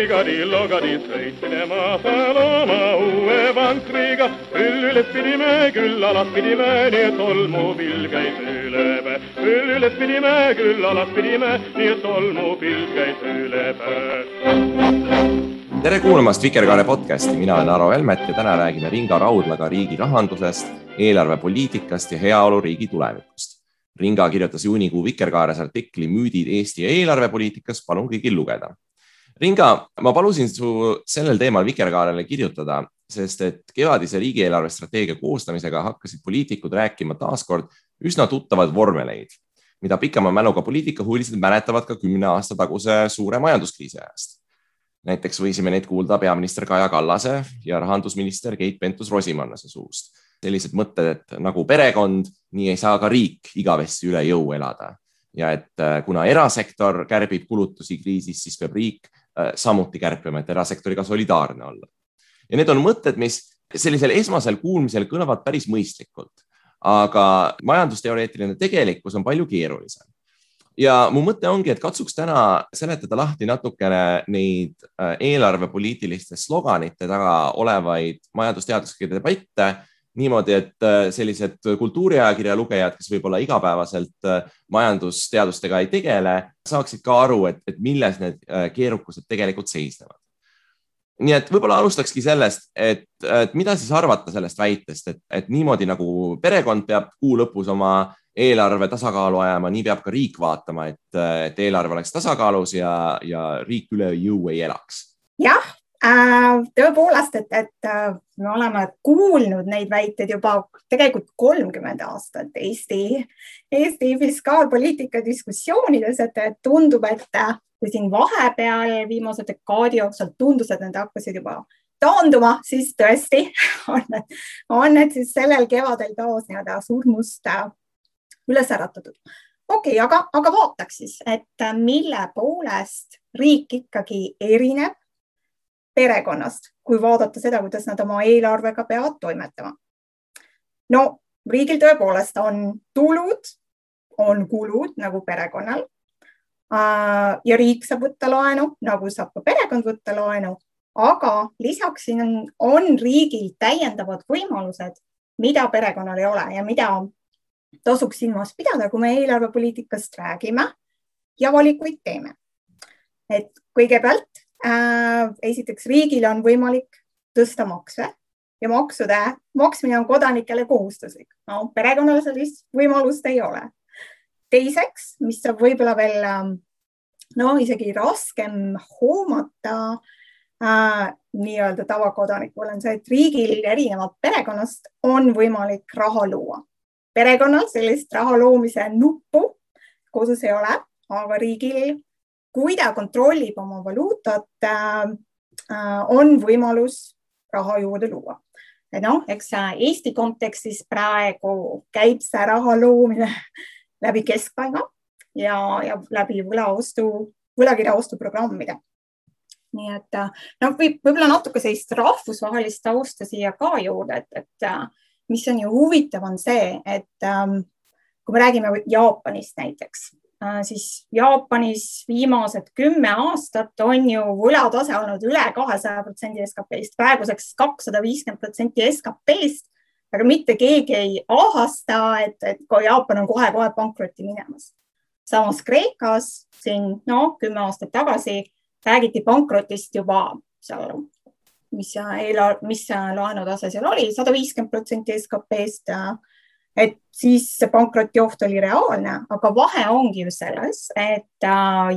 Logadi sõitsime maasal oma uue vankriga. Üles pidime, küll alas pidime, nii et tolmupilv käis üle päe. Üles pidime, küll alas pidime, nii et tolmupilv käis üle päe. Tere kuulamast Vikerkaare podcasti, mina olen Aro Helmet ja täna räägime Ringa Raudlaga riigi rahandusest, eelarvepoliitikast ja heaolu riigi tulevikust. Ringa kirjutas juunikuu Vikerkaares artikli Müüdid Eesti ja eelarvepoliitikas, palun kõigil lugeda. Ringa, ma palusin su sellel teemal Vikerkaarele kirjutada, sest et kevadise riigieelarve strateegia koostamisega hakkasid poliitikud rääkima taaskord üsna tuttavad vormeleid, mida pikema mäluga poliitikahuvilised mäletavad ka 10 aasta taguse suure majanduskriisi ajast. Näiteks võisime neid kuulda peaminister Kaja Kallase ja rahandusminister Keit Pentus-Rosimannuse suust. Sellised mõtted, et nagu perekond, nii ei saa ka riik igavesti üle jõu elada. Ja et kuna erasektor kärbib kulutusi kriisis, siis peab riik samuti kärpima, et erasektoriga solidaarne olla. Ja need on mõtted, mis sellisel esmasel kuulmisel kõlavad päris mõistlikult, aga majandusteoreetiline tegelikkus on palju keerulisem. Ja mu mõte ongi, et katsuks täna seletada lahti natukene neid eelarvepoliitiliste sloganite taga olevaid majandusteaduslikke debatte niimoodi, et sellised kultuuriajakirja lugejad, kes võib-olla igapäevaselt majandusteadustega ei tegele, saaksid ka aru, et milles need keerukused tegelikult seisnevad. Nii et võib-olla alustakski sellest, et mida siis arvata sellest väitest, et niimoodi nagu perekond peab kuu lõpus oma eelarve tasakaalu ajama, nii peab ka riik vaatama, et eelarve oleks tasakaalus ja riik üle jõu ei elaks. Jah, tõepoolest, et me oleme kuulnud neid väiteid juba tegelikult 30 aastat Eesti fiskaalpoliitika diskussioonides, et tundub, et kui siin vahepeal viimase dekaadi jooksul tundus, et need hakkasid juba taanduma, siis tõesti on need siis sellel kevadel taas surmust üles äratatud. Okei, aga vaataks siis, et mille poolest riik ikkagi erineb perekonnast, kui vaadata seda, kuidas nad oma eelarvega peavad toimetama. No, riigil tõepoolest on tulud, on kulud nagu perekonnal ja riik saab võtta laenu, nagu saab ka perekond võtta laenu, aga lisaks on riigil täiendavad võimalused, mida perekonnal ei ole ja mida tasuks silmas pidada, kui me eelarvepoliitikast räägime ja valikuid teeme. Et kõigepealt esiteks riigil on võimalik tõsta makse ja maksude maksmine on kodanikele kohustuslik. No, perekonnal sellist võimalust ei ole. Teiseks, mis saab võib-olla veel isegi raskem hoomata nii-öelda tavakodanikul on see, et riigil erinevalt perekonnast on võimalik raha luua. Perekonnal sellist raha loomise nuppu kodus ei ole, aga riigil, kui ta kontrollib oma valuutat, on võimalus raha juurde luua. Et eks Eesti kontekstis praegu käib see raha loomine läbi keskpanga ja läbi võlakirja ostu programmide. Nii et võib-olla natuke sellist rahvusvahelist tausta siia ka juurde, et mis on ju huvitav on see, et kui me räägime Jaapanist näiteks, siis Jaapanis viimased 10 aastat on ju võlatase olnud üle 200% SKP-st, praeguseks 250% SKP-st, aga mitte keegi ei ahasta, et kui Jaapan on kohe pankrotti minemas. Samas Kreekas siin 10 aastat tagasi räägiti pankrotist juba seal, mis laenutase seal oli, 150% SKP-st, et siis see pankrotioht oli reaalne, aga vahe ongi ju selles, et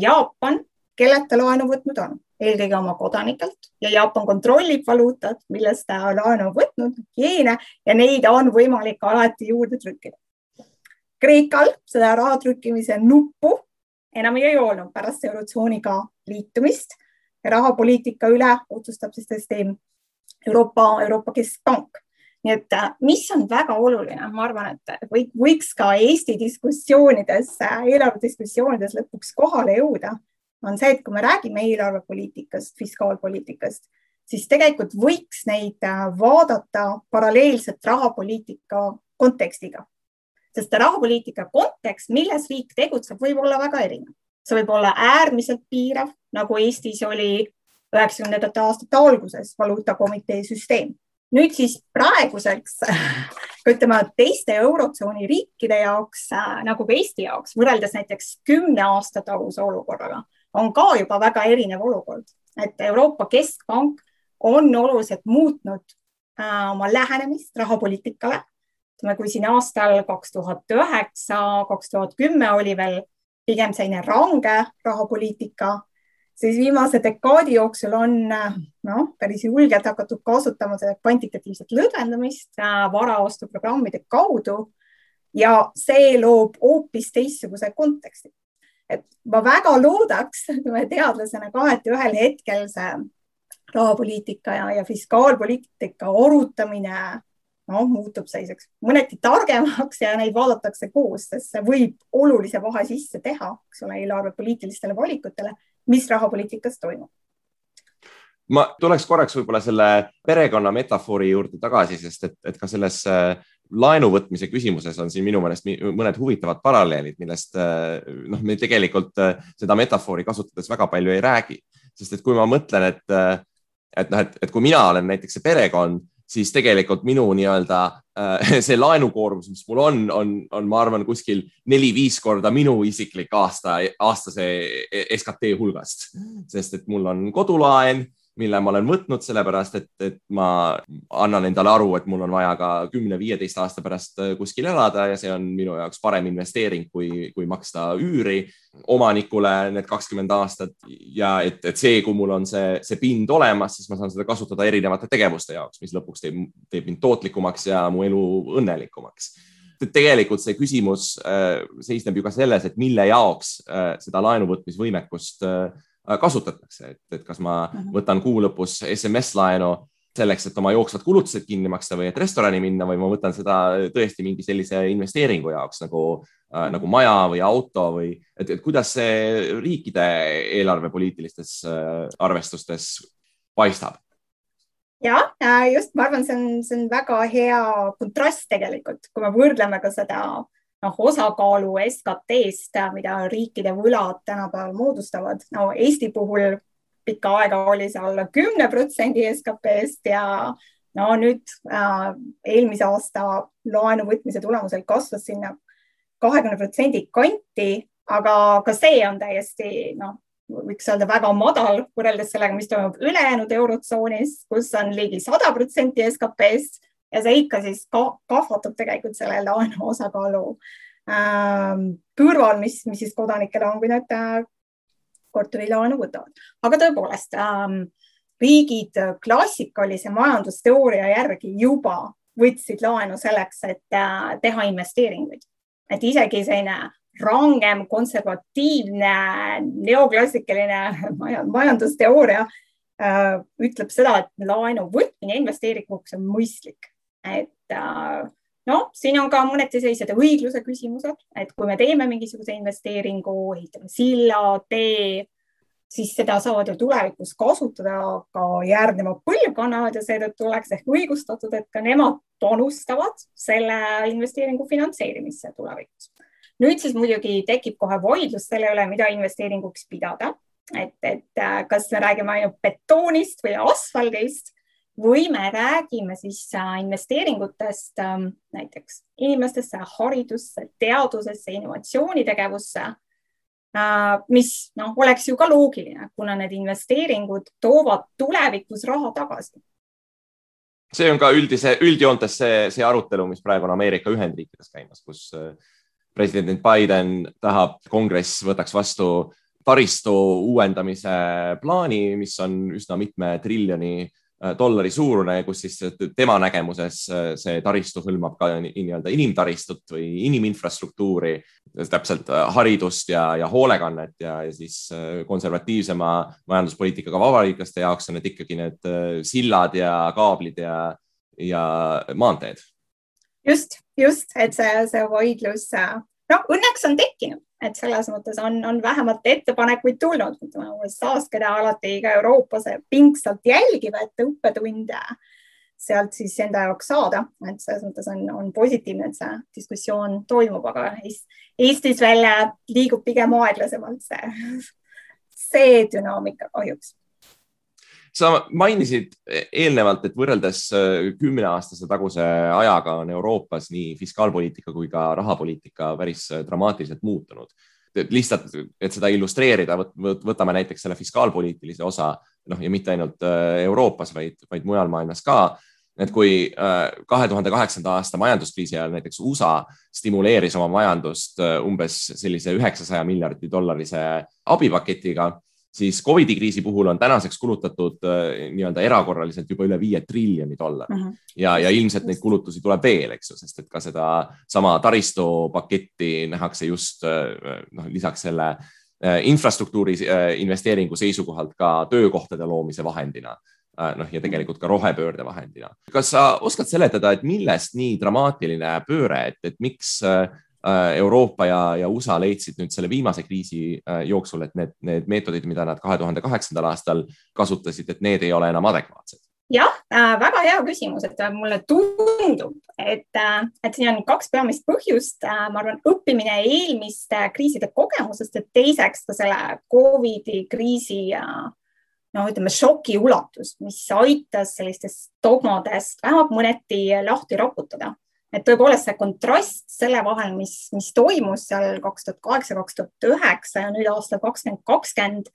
Jaapan, kellelt ta laenu võtnud on, eelkõige oma kodanikelt ja Jaapan kontrollib valuutat, millest ta laenu võtnud, jeene, ja neid on võimalik alati juurde trükkida. Kreekal seda raha trükkimise nuppu enam ei olnud pärast eurotsooniga liitumist. Rahapoliitika üle otsustab siis tõesti Euroopa Keskpank. Nii et mis on väga oluline, ma arvan, et võiks ka Eesti diskussioonides, eelarvediskussioonides lõpuks kohale jõuda, on see, et kui me räägime eelarvepoliitikast, fiskaalpoliitikast, siis tegelikult võiks neid vaadata paralleelselt rahapoliitika kontekstiga. Sest rahapoliitika kontekst, milles riik tegutseb, võib olla väga erinev. See võib olla äärmiselt piirav, nagu Eestis oli 90ndate aastate alguses valuutakomitee süsteem. Nüüd siis praeguseks, ütleme, teiste eurotsooni riikide jaoks, nagu ka Eesti jaoks, võrreldes näiteks 10 aasta taguse olukorraga, on ka juba väga erinev olukord. Et Euroopa Keskpank on oluliselt muutnud oma lähenemist rahapoliitikale. Kui siin aastal 2009, 2010 oli veel pigem selline range rahapoliitika, siis viimase dekaadi jooksul on päris julgelt hakatud kasutama seda kvantitatiivset lõdvendamist varaostuprogrammide kaudu ja see loob hoopis teistsuguse konteksti. Et ma väga loodaks teadlasena ka, et ühel hetkel see rahapoliitika ja fiskaalpoliitika arutamine muutub selliseks mõneti targemaks ja neid vaadatakse koos, sest see võib olulise vahe sisse teha, eks ole, eelarvepoliitilistele valikutele, mis rahapoliitikas toimub. Ma tuleks korraks võib-olla selle perekonna metafoori juurde tagasi, sest et ka selles laenuvõtmise küsimuses on siin minu meelest mõned huvitavad paralleelid, millest me tegelikult seda metafoori kasutades väga palju ei räägi. Sest et kui ma mõtlen, et kui mina olen näiteks see perekond, siis tegelikult minu see laenukoormus, mis mul on, ma arvan, kuskil 4-5 korda minu isiklik aastase SKT hulgast. Sest et mul on kodulaen, mille ma olen võtnud sellepärast, et ma annan endale aru, et mul on vaja ka 10-15 aasta pärast kuskil elada ja see on minu jaoks parem investeering, kui maksta üüri omanikule need 20 aastat ja et see, kui mul on see pind olemas, siis ma saan seda kasutada erinevate tegevuste jaoks, mis lõpuks teeb mind tootlikumaks ja mu elu õnnelikumaks. Tegelikult see küsimus seisneb ju ka selles, et mille jaoks seda laenuvõtmisvõimekust kasutatakse, et kas ma võtan kuu lõpus SMS-laenu selleks, et oma jooksvad kulutused kinni maksta või et restorani minna või ma võtan seda tõesti mingi sellise investeeringu jaoks nagu maja või auto või et kuidas see riikide eelarvepoliitilistes arvestustes paistab? Ja, just ma arvan, see on väga hea kontrast tegelikult, kui me võrdleme ka seda osakaalu SKT-st, mida riikide võlad tänapäeval moodustavad. Eesti puhul pikka aega oli see alla 10% SKP-st ja nüüd eelmise aasta laenu võtmise tulemusel kasvas sinna 20% kanti, aga ka see on täiesti, võiks öelda väga madal võrreldes sellega, mis toimub ülejäänud eurotsoonis, kus on ligi 100% SKP-st. Ja see ikka siis kahvatab tegelikult selle laenu osakaalu kõrval, mis siis kodanikele on, kui nad korterilaenu võtavad. Aga tõepoolest, riigid klassikalise majandusteooria järgi juba võtsid laenu selleks, et teha investeeringuid. Et isegi selline rangem, konservatiivne, neoklassikaline majandusteooria ütleb seda, et laenu võtmine investeeringuks on mõistlik. Et siin on ka mõneti sellised õigluse küsimused, et kui me teeme mingisuguse investeeringu, ehitame silla, tee, siis seda saavad ju tulevikus kasutada ka järgneva põlvkonnad ja seetõttu oleks ehk õigustatud, et ka nemad panustavad selle investeeringu finantseerimisse tulevikus. Nüüd siis muidugi tekib kohe vaidlus selle üle, mida investeeringuks pidada, et kas me räägime ainult betoonist või asfaldist, või me räägime siis investeeringutest näiteks inimestesse, haridusse, teadusesse, innovatsioonitegevusse, mis oleks ju ka loogiline, kuna need investeeringud toovad tulevikus raha tagasi. See on ka üldjoontes see arutelu, mis praegu on Ameerika Ühendriikides käimas, kus president Biden tahab, kongress võtaks vastu taristu uuendamise plaani, mis on üsna mitme triljoni dollari suurune, kus siis tema nägemuses see taristu hõlmab ka nii-öelda inimtaristut või iniminfrastruktuuri, täpselt haridust ja hoolekannet ja siis konservatiivsema majanduspoliitikaga vabariiklaste jaoks on need ikkagi need sillad ja kaablid ja maanteed. Just, et see vaidlus õnneks on tekkinud, et selles mõttes on vähemalt ettepanekuid tulnud. USA-s, keda alati ka Euroopas pingsalt jälgib, et õppetunde sealt siis enda jaoks saada. Et selles mõttes on positiivne, et see diskussioon toimub, aga Eestis veel liigub pigem aeglasemalt see dünaamika kahjuks. Sa mainisid eelnevalt, et võrreldes 10-aastase taguse ajaga on Euroopas nii fiskaalpoliitika kui ka rahapoliitika päris dramaatiliselt muutunud. Lihtsalt, et seda illustreerida, võtame näiteks selle fiskaalpoliitilise osa, ja mitte ainult Euroopas, vaid mujal maailmas ka. Et kui 2008. aasta majanduskriisi ajal näiteks USA stimuleeris oma majandust umbes sellise $900 miljardi abipaketiga, siis COVID-i kriisi puhul on tänaseks kulutatud nii-öelda erakorraliselt juba üle $5 triljoni. Ja ilmselt neid kulutusi tuleb veel, eks ju, sest et ka seda sama taristupaketti nähakse just lisaks selle infrastruktuuri investeeringu seisukohalt ka töökohtade loomise vahendina. Ja tegelikult ka rohepöörde vahendina. Kas sa oskad seletada, et millest nii dramaatiline pööre, et miks Euroopa ja USA leidsid nüüd selle viimase kriisi jooksul, et need meetodid, mida nad 2008. aastal kasutasid, et need ei ole enam adekvaatsed? Jah, väga hea küsimus, et mulle tundub, et siin on 2 peamist põhjust. Ma arvan, õppimine eelmiste kriiside kogemusest ja teiseks ka selle COVID-i kriisi šoki ulatust, mis aitas sellistest dogmadest vähemalt mõneti lahti raputada. Et tõepoolest see kontrast selle vahel, mis toimus seal 2008-2009 ja nüüd aastal 2020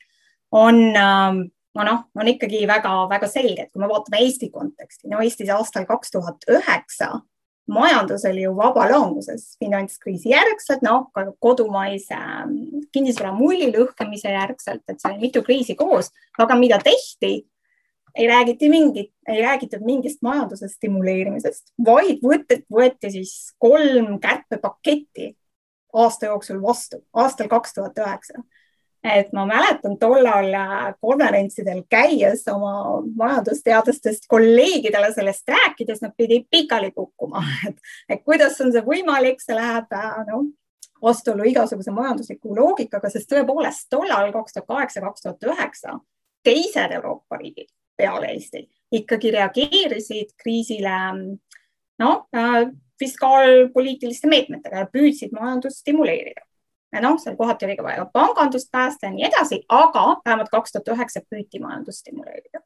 on ikkagi väga, väga selge. Kui me vaatame Eesti konteksti, Eestis aastal 2009 majandus oli ju vaba languses finantskriisi järgselt, ka kodumaise kinnisvara mulli lõhkemise järgselt, et see oli mitu kriisi koos, aga mida tehti? Ei räägitud mingist majanduse stimuleerimisest, vaid võeti siis 3 kärpepaketti aasta jooksul vastu, aastal 2009. Et ma mäletan tollal konverentsidel käies oma majandusteadlastest kolleegidele sellest rääkides, nad pidi pikali kukkuma. Et kuidas on see võimalik, see läheb vastuollu igasuguse majandusliku loogikaga, sest tõepoolest tollal 2008-2009 teised Euroopa riigid peale Eesti ikkagi reageerisid kriisile fiskaalpoliitiliste meetmetega ja püüdsid majandust stimuleerida. Seal kohati oli ka vaja pangandust päästa ja nii edasi, aga vähemalt 2009 püüti majandust stimuleerida.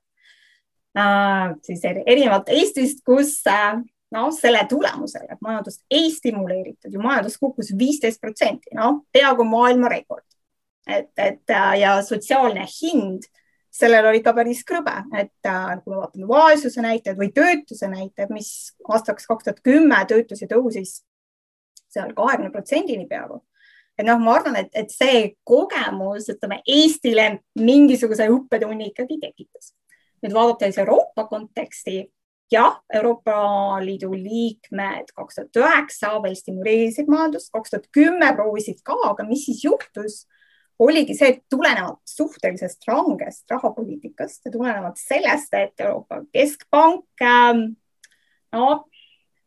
Siis erinevalt Eestist, kus selle tulemusel, et majandust ei stimuleeritud, ju majandus kukkus 15%, peaaegu maailma rekord. Ja sotsiaalne hind sellel oli ka päris krõbe, et kui me vaatame vaesuse näitajad või töötuse näitajad, mis aastaks 2010 töötuse tõusis seal 20%-ni peaaegu. Et ma arvan, et see kogemus, ütleme, Eestile mingisuguse õppetunni ikkagi tekitas. Nüüd vaadates Euroopa konteksti, jah, Euroopa Liidu liikmed 2009 veel stimuleerisid majandust, 2010 proovisid ka, aga mis siis juhtus? Oligi see, et tulenevalt suhtelisest rangest rahapoliitikast ja tulenevalt sellest, et Euroopa Keskpank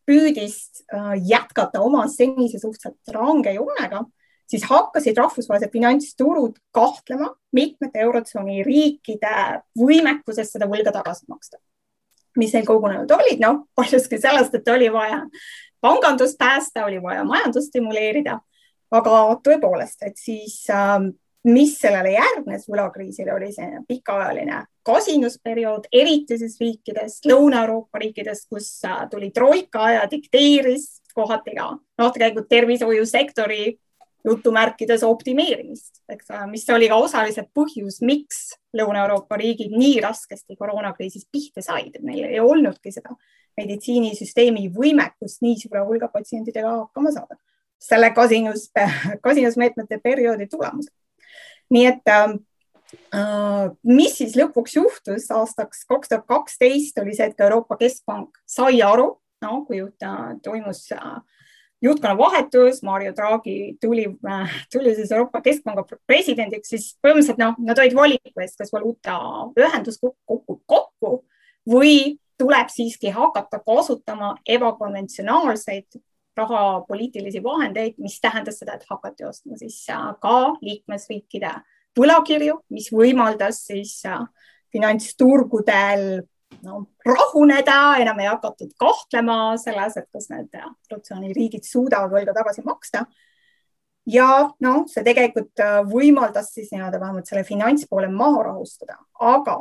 püüdis jätkata oma senise suhteliselt range joonega, siis hakkasid rahvusvahelised finantsturud kahtlema mitmete eurotsooni riikide võimekuses seda võlga tagasi maksta. Mis neil kogunenud olid? Paljuski sellest, et oli vaja pangandust päästa, oli vaja majandust stimuleerida, aga tõepoolest, et siis mis sellele järgnes võlakriisile oli see pikaajaline kasinusperiood, eriti siis riikides, Lõuna-Euroopa riikides, kus tuli troika ja dikteeris kohati ka tervishoiusektori jutumärkides optimeerimist, mis oli ka osaliselt põhjus, miks Lõuna-Euroopa riigid nii raskesti koroonakriisis pihta said, et neil ei olnudki seda meditsiinisüsteemi võimekust nii suure hulga patsientidega hakkama saada. Selle kasinusmeetmete perioodi tulemusel. Nii et mis siis lõpuks juhtus aastaks 2012 oli see, et Euroopa Keskpank sai aru, kui toimus juhtkonna vahetus, Mario Draghi tuli siis Euroopa Keskpanga presidendiks, siis põhimõtteliselt nad olid valiku eest, kas valuuta ühendus kokku või tuleb siiski hakata kasutama ebakonventsionaalseid rahapoliitilisi vahendeid, mis tähendas seda, et hakati ostma siis ka liikmesriikide võlakirju, mis võimaldas siis finantsturgudel rahuneda, enam ei hakatud kahtlema selles, et kas need eurotsooni riigid suudavad võlga tagasi maksta. ja see tegelikult võimaldas siis vähemalt selle finantspoole maha rahustada, aga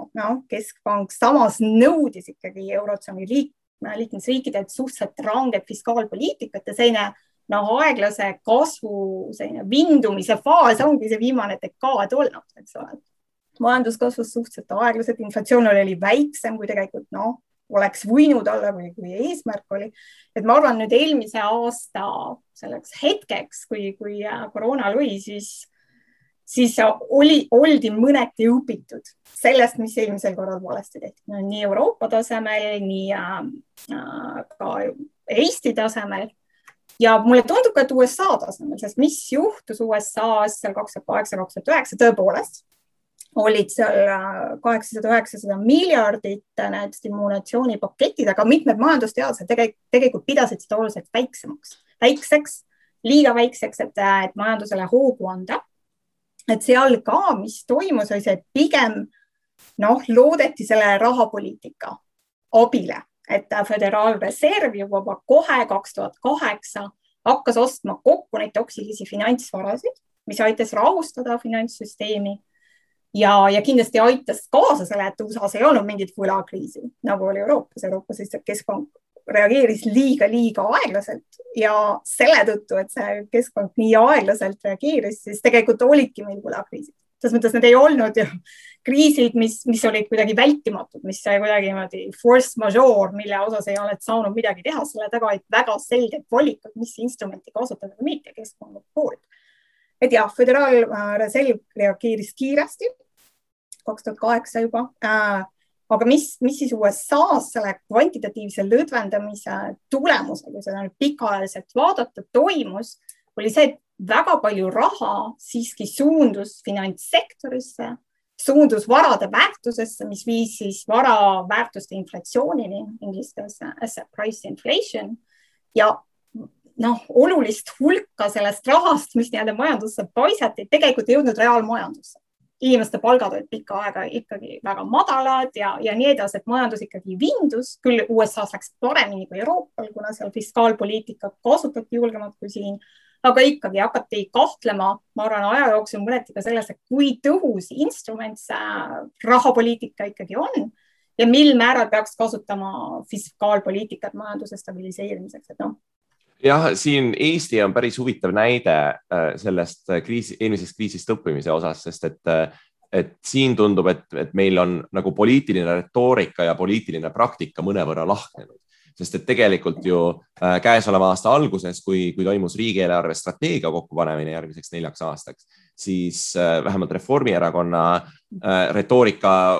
keskpank samas nõudis ikkagi eurotsooni liikmesriikidelt suhteliselt ranget fiskaalpoliitikat ja selline aeglase kasvu, selline vindumise faas ongi see viimane dekaad olnud, eks ole. Majanduskasvus suhteliselt aeglaselt, inflatsioon oli väiksem kui tegelikult oleks võinud olla või kui eesmärk oli. Et ma arvan nüüd eelmise aasta selleks hetkeks, kui koroona lõi, siis oldi mõneti õpitud sellest, mis eelmisel korral valesti tehti. Nii Euroopa tasemel, nii ka Eesti tasemel. Ja mulle tundub ka, et USA tasemel, sest mis juhtus USA-s seal 2008-2009 tõepoolest, olid seal 800-900 miljardit need stimulatsioonipaketid, aga mitmed majandusteadlased tegelikult pidasid seda oluliselt väikseks, liiga väikseks, et majandusele hoogu anda. Et seal ka, mis toimus, oli see pigem loodeti selle rahapoliitika abile, et Föderaalreserv juba kohe 2008 hakkas ostma kokku neid toksilisi finantsvarasid, mis aitas rahustada finantssüsteemi. Ja kindlasti aitas kaasa selle, et USA-s ei olnud mingit võlakriisi, nagu oli Euroopas. Euroopas lihtsalt keskpank reageeris liiga aeglaselt ja selle tõttu, et see keskpank nii aeglaselt reageeris, siis tegelikult olidki meil võlakriisid. Selles mõttes need ei olnud ju kriisid, mis olid kuidagi vältimatud, mis sai kuidagi force majeure, mille osas ei oled saanud midagi teha, selle taga olid väga selged valikud, mis instrumenti kasutada mitte keskpanga poolt. Et jah, Föderaalreserv reageeris kiiresti 2008 juba, aga mis siis USA-s selle kvantitatiivse lõdvendamise tulemusel, kui seda pikaajaliselt vaadata toimus, oli see, et väga palju raha siiski suundus finantssektorisse, suundus varade väärtusesse, mis viis siis vara väärtuste inflatsioonini, inglistes asset price inflation ja olulist hulka sellest rahast, mis majandusse paisati, tegelikult ei jõudnud reaalmajandusse. Inimeste palgad olid pikka aega ikkagi väga madalad ja nii edasi, et majandus ikkagi vindus, küll USA-s läks paremini kui Euroopal, kuna seal fiskaalpoliitika kasutati julgemalt kui siin, aga ikkagi hakati kahtlema, ma arvan, aja jooksul mõneti ka selles, et kui tõhus instrument see rahapoliitika ikkagi on ja mil määral peaks kasutama fiskaalpoliitikat majanduse stabiliseerimiseks, et Jah, siin Eesti on päris huvitav näide sellest eelmisest kriisist õppimise osas, sest et siin tundub, et meil on nagu poliitiline retoorika ja poliitiline praktika mõnevõrra lahknenud. Sest et tegelikult ju käesoleva aasta alguses, kui toimus riigieelarve strateegia kokkupanemine järgmiseks 4 aastaks, siis vähemalt Reformierakonna retoorika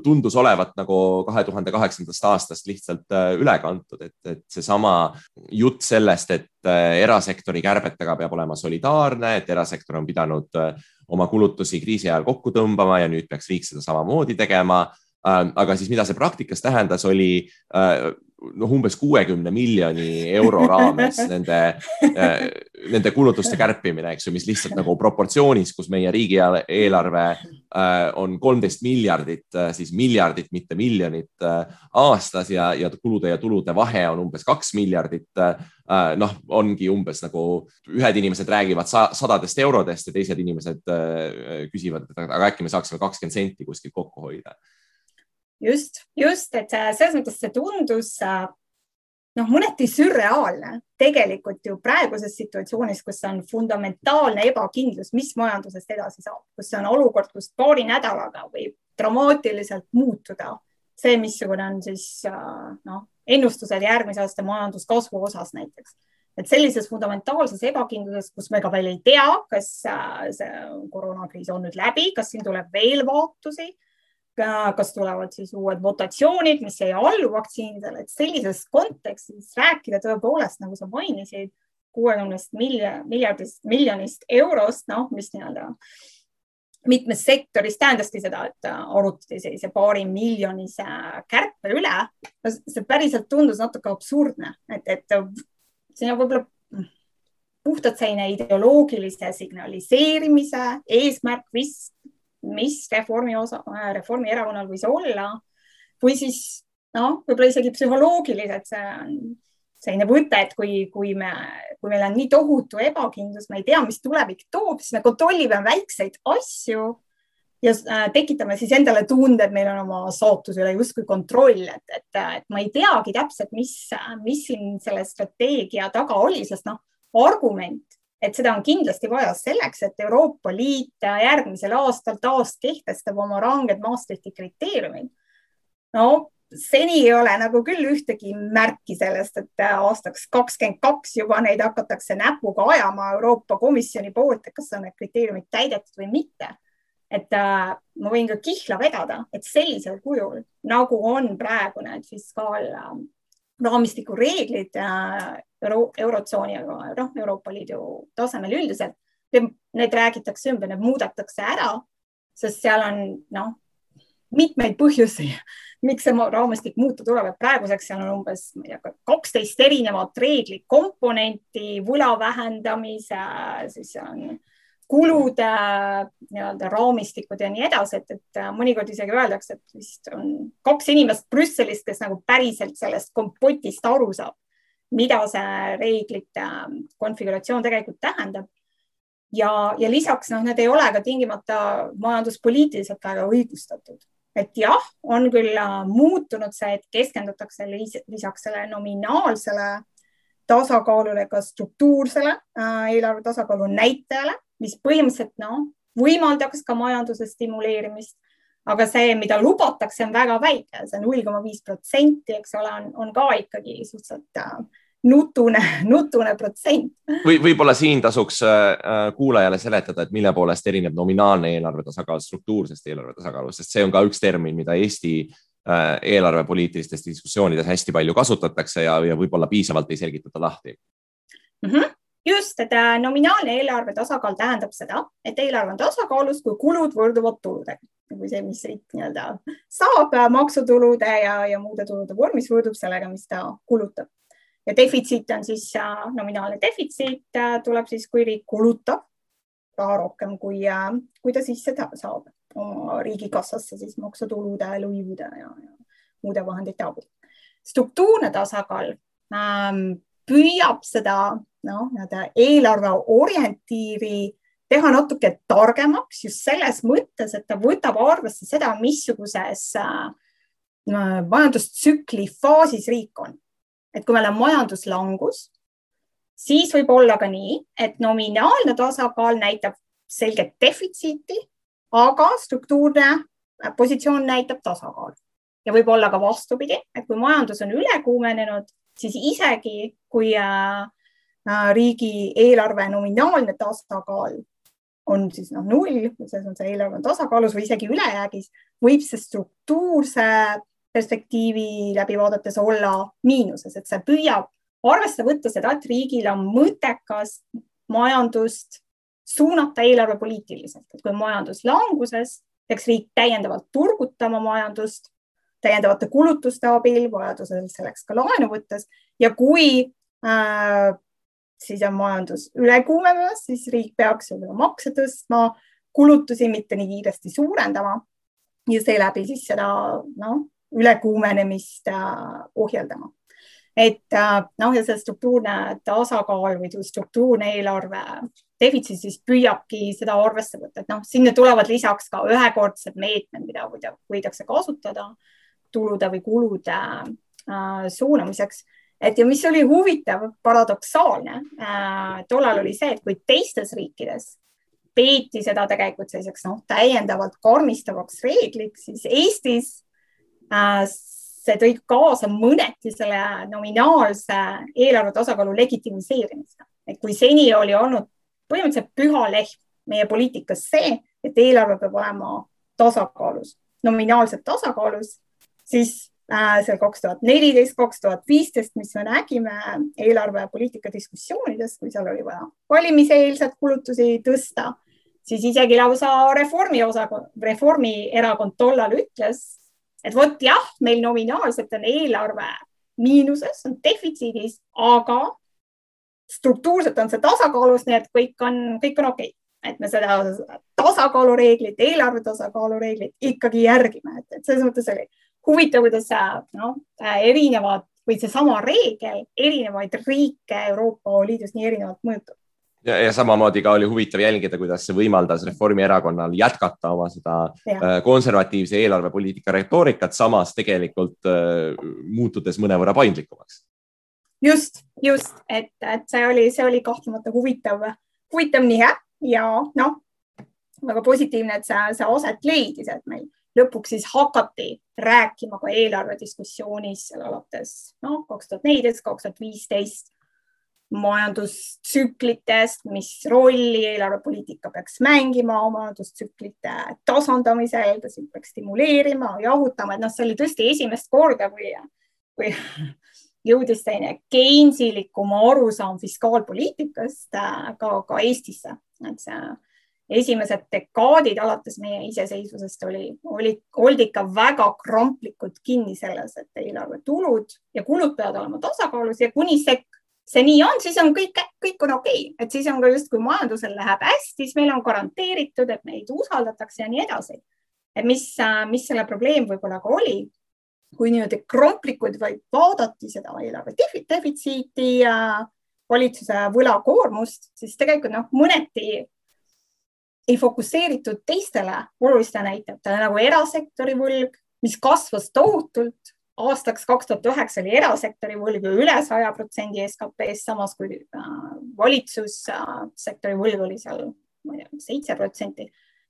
tundus olevat nagu 2008. aastast lihtsalt üle kantud, et seesama jutt sellest, et erasektori kärbetega peab olema solidaarne, et erasektor on pidanud oma kulutusi kriisi ajal kokku tõmbama ja nüüd peaks riik seda samamoodi tegema. Aga siis mida see praktikas tähendas, oli umbes 60 miljoni euro raames nende kulutuste kärpimine, eks ju, mis lihtsalt nagu proportsioonis, kus meie riigieelarve on 13 miljardit, siis miljardit, mitte miljonit aastas ja kulude ja tulude vahe on umbes 2 miljardit. Ongi umbes nagu ühed inimesed räägivad 100 eurodest ja teised inimesed küsivad, et aga äkki me saaksime 20 senti kuskil kokku hoida. Just, et selles mõttes see tundus mõneti sürreaalne tegelikult ju praeguses situatsioonis, kus on fundamentaalne ebakindlus, mis majandusest edasi saab, kus on olukord, kus paari nädalaga võib dramaatiliselt muutuda see, missugune on siis ennustused järgmise aasta majanduskasvu osas näiteks. Et sellises fundamentaalses ebakindluses, kus me ka veel ei tea, kas see koroonakriis on nüüd läbi, kas siin tuleb veel vaatusi, kas tulevad siis uued mutatsioonid, mis ei allu vaktsiinidele, et sellises kontekstis rääkida tõepoolest, nagu sa mainisid, 60 miljonist eurost, mis mitmes sektoris tähendaski seda, et arutati sellise paari miljonise kärpe üle. See päriselt tundus natuke absurdne, et siin on võib-olla puhtalt selline ideoloogilise signaliseerimise eesmärk, mis Reformierakonnal võis olla, või siis võib-olla isegi psühholoogiliselt see on selline võte, et kui me kui meil on nii tohutu ebakindlus, me ei tea, mis tulevik toob, siis me kontrollime väikseid asju ja tekitame siis endale tunde, et meil on oma saatus üle justkui kontroll, et ma ei teagi täpselt, mis siin selle strateegia taga oli, sest argument, et seda on kindlasti vaja selleks, et Euroopa Liit järgmisel aastal taas kehtestab oma ranged Maastrichti kriteeriumid. Seni ei ole nagu küll ühtegi märki sellest, et aastaks 2022 juba neid hakatakse näpuga ajama Euroopa Komisjoni poolt, et kas on need kriteeriumid täidetud või mitte. Et ma võin ka kihla vedada, et sellisel kujul, nagu on praegu need fiskaalraamistiku reeglid eurotsooni ja Euroopa Liidu tasemel üldiselt, need räägitakse ümber, need muudetakse ära, sest seal on mitmeid põhjusi, miks see raamistik muuta tuleb, et praeguseks seal on umbes 12 erinevat reeglit, komponenti, võla vähendamise, siis on kulude raamistikud ja nii edasi, et mõnikord isegi öeldakse, et vist on 2 inimest Brüsselist, kes nagu päriselt sellest kompotist aru saab, mida see reeglite konfiguratsioon tegelikult tähendab. Ja lisaks need ei ole ka tingimata majanduspoliitiliselt väga õigustatud. Et jah, on küll muutunud see, et keskendutakse lisaks selle nominaalsele tasakaalule ka struktuursele eelarve tasakaalu näitajale, mis põhimõtteliselt võimaldaks ka majanduse stimuleerimist, aga see, mida lubatakse, on väga väike, see 0,5%, eks ole, on ka ikkagi suhteliselt nutune protsent. Võib-olla siin tasuks kuulajale seletada, et mille poolest erineb nominaalne eelarve tasakaal struktuursest eelarve tasakaalust, sest see on ka üks termin, mida Eesti eelarvepoliitilistes diskussioonides hästi palju kasutatakse ja võib-olla piisavalt ei selgitata lahti. Just, et nominaalne eelarve tasakaal tähendab seda, et eelarve on tasakaalus, kui kulud võrduvad tuludega. Kui see, mis riik saab maksutulude ja muude tulude vormis võrdub sellega, mis ta kulutab. Ja defitsiit on siis nominaalne defitsiit, tuleb siis, kui riik kulutab raha rohkem, kui ta sisse saab oma riigikassasse siis maksutulude, lõivude ja muude vahendite abil. Struktuurne tasakaal püüab seda eelarve orientiiri teha natuke targemaks just selles mõttes, et ta võtab arvesse seda, missuguses majandustsükli faasis riik on. Et kui meil on majanduslangus, siis võib olla ka nii, et nominaalne tasakaal näitab selget defitsiiti, aga struktuurne positsioon näitab tasakaal. Ja võib olla ka vastupidi, et kui majandus on ülekuumenenud, siis isegi kui riigi eelarve nominaalne tasakaal on siis 0, see eelarve on tasakaalus või isegi ülejäägis, võib see struktuurse perspektiivi läbi vaadates olla miinuses, et see püüab arvesse võtta seda, et riigil on mõttekas majandust suunata eelarvepoliitiliselt. Et kui majanduslanguses peaks riik täiendavalt turgutama majandust, täiendavate kulutuste abil, vajadusel selleks ka laenu võttes ja kui siis on majandus ülekuumenemas, siis riik peaks makse tõstma, kulutusi mitte nii kiiresti suurendama ja seeläbi siis seda ülekuumenemist ohjeldama. Et ja see struktuurne tasakaal või struktuurne eelarve defitsiit siis püüabki seda arvesse võtta, et sinna tulevad lisaks ka ühekordsed meetmed, mida võidakse kasutada tulude või kulude suunamiseks. Et ja mis oli huvitav, paradoksaalne, tollal oli see, et kui teistes riikides peeti seda tegelikult selliseks täiendavalt karmistavaks reegliks, siis Eestis see tõi kaasa mõneti selle nominaalse eelarve tasakaalu legitimiseerimise. Et kui seni oli olnud põhimõtteliselt püha lehm meie poliitikas see, et eelarve peab olema tasakaalus, nominaalselt tasakaalus, siis seal 2014-2015, mis me nägime eelarvepoliitika diskussioonides, kui seal oli vaja valimiseelset kulutusi tõsta, siis isegi lausa Reformierakond tollal ütles, et võt jah, meil nominaalselt on eelarve miinuses, on defitsiidis, aga struktuurselt on see tasakaalus, nii et kõik on okei. Et me seda tasakaalureeglit, eelarve tasakaalureeglit ikkagi järgime. Et selles mõttes oli huvitav, kuidas erinevad või seesama reegel erinevaid riike Euroopa Liidus nii erinevalt mõjutab. Ja samamoodi ka oli huvitav jälgida, kuidas see võimaldas Reformierakonnal jätkata oma seda konservatiivse eelarvepoliitika retoorikat, samas tegelikult muutudes mõnevõrra paindlikumaks. Just, et see oli kahtlemata huvitav nihe ja väga positiivne, et see aset leidis, et meil lõpuks siis hakati rääkima ka eelarvediskussioonis alates 2014-2015 majandustsüklitest, mis rolli eelarvepoliitika peaks mängima majandustsüklite tasandamisel, ta peaks stimuleerima, jahutama, et see oli tõesti esimest korda, kui jõudis selline Keynesilikum arusaam fiskaalpoliitikast ka Eestisse. Et see esimesed dekaadid alates meie iseseisvusest olid ikka väga kramplikult kinni selles, et eelarve tulud ja kulud peavad olema tasakaalus ja kuni see nii on, siis on kõik on okei. Et siis on ka just, kui majandusel läheb hästi, siis meil on garanteeritud, et meid usaldatakse ja nii edasi. Et mis selle probleem võib-olla ka oli, kui niimoodi kramplikud vaadati seda eelarve defitsiiti ja valitsuse võlakoormust, siis tegelikult mõneti ei fokusseeritud teistele oluliste näitajatele nagu erasektori võlg, mis kasvas tohutult. Aastaks 2009 oli erasektori võlg üle 100% SKP-st, samas kui valitsussektori võlg oli seal 7%.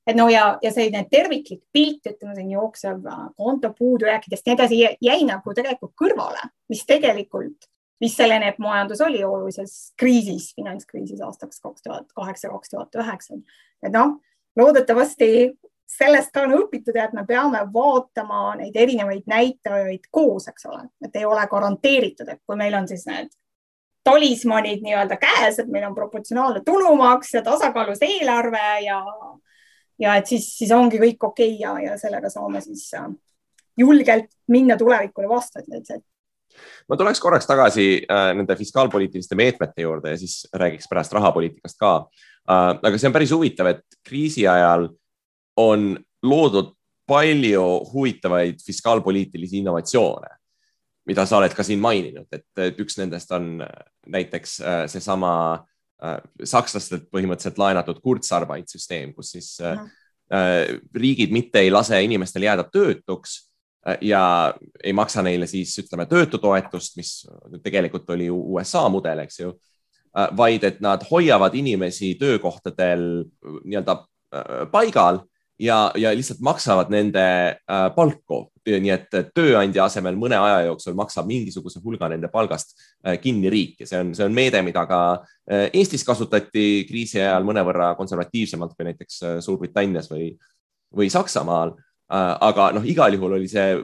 Et ja selline terviklik pilt, ütleme siin jooksev konto puudujääkidest, nii edasi jäi nagu tegelikult kõrvale, mis tegelikult selleni, et majandus oli olulises kriisis, finantskriisis aastaks 2008-2009. Et loodetavasti sellest ka on õpitud, et me peame vaatama neid erinevaid näitajaid koos, eks ole. Et ei ole garanteeritud, et kui meil on siis need talismanid nii-öelda käes, et meil on proportsionaalne tulumaks ja tasakaalus eelarve ja et siis ongi kõik okei ja sellega saame siis julgelt minna tulevikule vastu. Ma tuleks korraks tagasi nende fiskaalpoliitiliste meetmete juurde ja siis räägiks pärast rahapoliitikast ka. Aga see on päris huvitav, et kriisi ajal on loodud palju huvitavaid fiskaalpoliitilisi innovatsioone, mida sa oled ka siin maininud, et üks nendest on näiteks seesama sakslastelt põhimõtteliselt laenatud Kurzarbeit-süsteem, kus siis riigid mitte ei lase inimestel jääda töötuks ja ei maksa neile siis, ütleme, töötutoetust, mis tegelikult oli USA mudel, eks ju, vaid et nad hoiavad inimesi töökohtadel nii-öelda paigal ja lihtsalt maksavad nende palku, nii et tööandja asemel mõne aja jooksul maksab mingisuguse hulga nende palgast kinni riik ja see on meede, mida ka Eestis kasutati kriisi ajal mõnevõrra konservatiivsemalt või näiteks Suurbritannias või Saksamaal, aga igal juhul oli see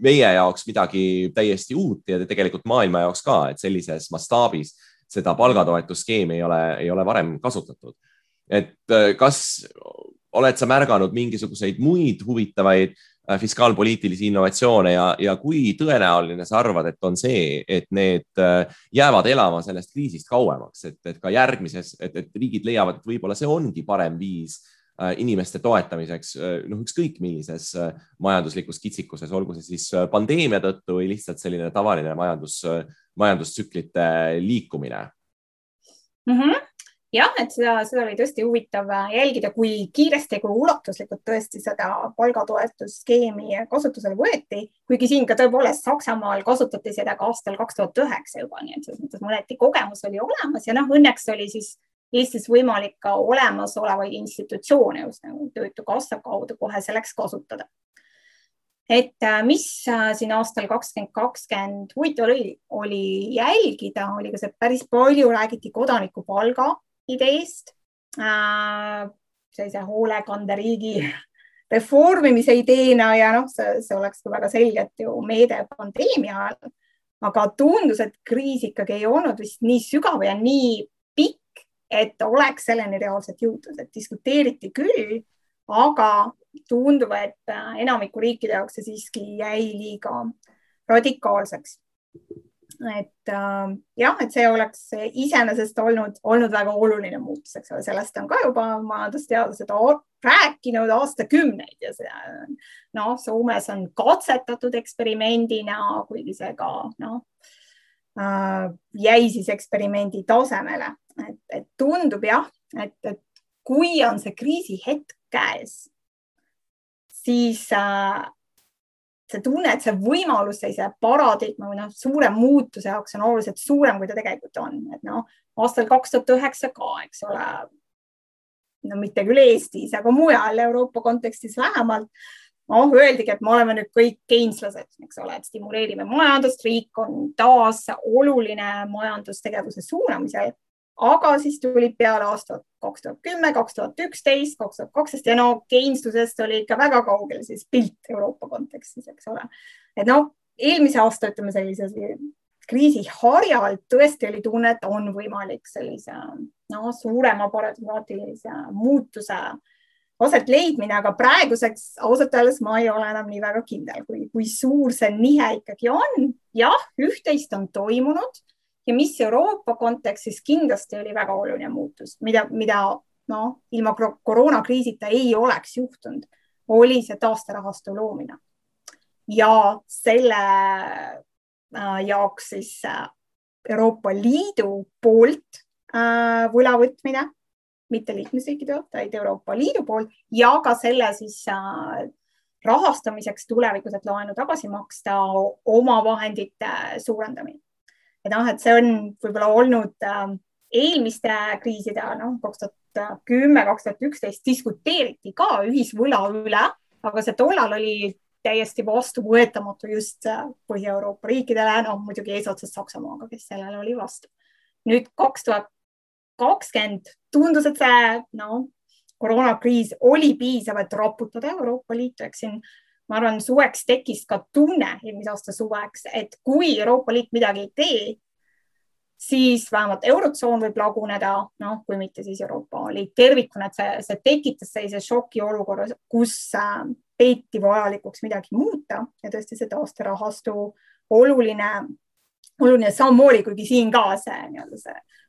meie jaoks midagi täiesti uut ja tegelikult maailma jaoks ka, et sellises mastaabis seda palgatoetusskeemi ei ole varem kasutatud. Et kas oled sa märganud mingisuguseid muid huvitavaid fiskaalpoliitilisi innovatsioone ja kui tõenäoline sa arvad, et on see, et need jäävad elama sellest kriisist kauemaks, et ka järgmises, et riigid leiavad, et võib-olla see ongi parem viis inimeste toetamiseks, ükskõik millises majanduslikus kitsikuses, olgu see siis pandeemia tõttu või lihtsalt selline tavaline majandustsüklite liikumine. Jah, et seda oli tõesti huvitav jälgida, kui kiiresti ja kui ulatuslikult tõesti seda palgatoetusskeemi kasutusele võeti, kuigi siin ka tõepoolest Saksamaal kasutati seda ka aastal 2009 juba, nii et selles mõttes mõneti kogemus oli olemas ja õnneks oli siis Eestis võimalik ka olemasolevaid institutsioone just nagu töötukassa kaudu kohe selleks kasutada. Et mis siin aastal 2020 huvitav oli jälgida, oli ka see päris palju räägiti kodanikupalga ideest, sellise hoolekanderiigi reformimise ideena ja see oleks ka väga selgelt ju meede pandeemia ajal, aga tundus, et kriis ikkagi ei olnud vist nii sügav ja nii pikk, et oleks selleni reaalselt jõudnud, et diskuteeriti küll, aga tundub, et enamiku riikide jaoks see siiski jäi liiga radikaalseks. et et see oleks iseenesest olnud väga oluline muutus, eks ole, sellest on ka juba majandusteadlased rääkinud aastakümneid ja see, Soomes on katsetatud eksperimendina, kuigi see ka jäi siis eksperimendi tasemele, et tundub et kui on see kriisi hetk käes, siis see tunne, et see võimalus sellise paradigma või suurem muutuse jaoks on oluliselt suurem, kui ta tegelikult on. Et aastal 2009 ka, eks ole, mitte küll Eestis, aga mujal Euroopa kontekstis vähemalt, öeldigi, et me oleme nüüd kõik keinslased, eks ole, et stimuleerime majandust, riik on taas oluline majandustegevuse suunamisel, aga siis tuli peale aastat 2010, 2011, 2012 ja keinslusest oli ikka väga kaugel siis pilt Euroopa kontekstis, eks ole. Et eelmise aasta, ütleme sellise kriisi harjal tõesti oli tunne, et on võimalik sellise suurema paradigmaatilise muutuse aset leidmine, aga praeguseks ausalt öeldes ma ei ole enam nii väga kindel, kui suur see nihe ikkagi on. Jah, üht-teist on toimunud ja mis Euroopa kontekstis kindlasti oli väga oluline muutus, mida ilma koroonakriisita ei oleks juhtunud, oli see taasterahastu loomine. Ja selle jaoks siis Euroopa Liidu poolt võlavõtmine, mitte liikmesriikide, vaid Euroopa Liidu poolt ja ka selle siis rahastamiseks tulevikus, et laenu tagasi maksta oma vahendite suurendamine. Et see on võib-olla olnud eelmiste kriiside 2010, 2011 diskuteeriti ka ühisvõla üle, aga see tollal oli täiesti vastuvõetamatu just Põhja-Euroopa riikidele, muidugi eesotsas Saksamaaga, kes sellele oli vastu. Nüüd 2020 tundus, et see koroonakriis oli piisav, et raputada Euroopa Liitu, eks siin ma arvan, suveks tekkis ka tunne eelmise aasta suveks, et kui Euroopa Liit midagi ei tee, siis vähemalt eurotsoon võib laguneda, kui mitte siis Euroopa Liit tervikuna, et see tekitas sellise šoki olukorras, kus peeti vajalikuks midagi muuta ja tõesti see taasterahastu oluline samm oli, kuigi siin ka see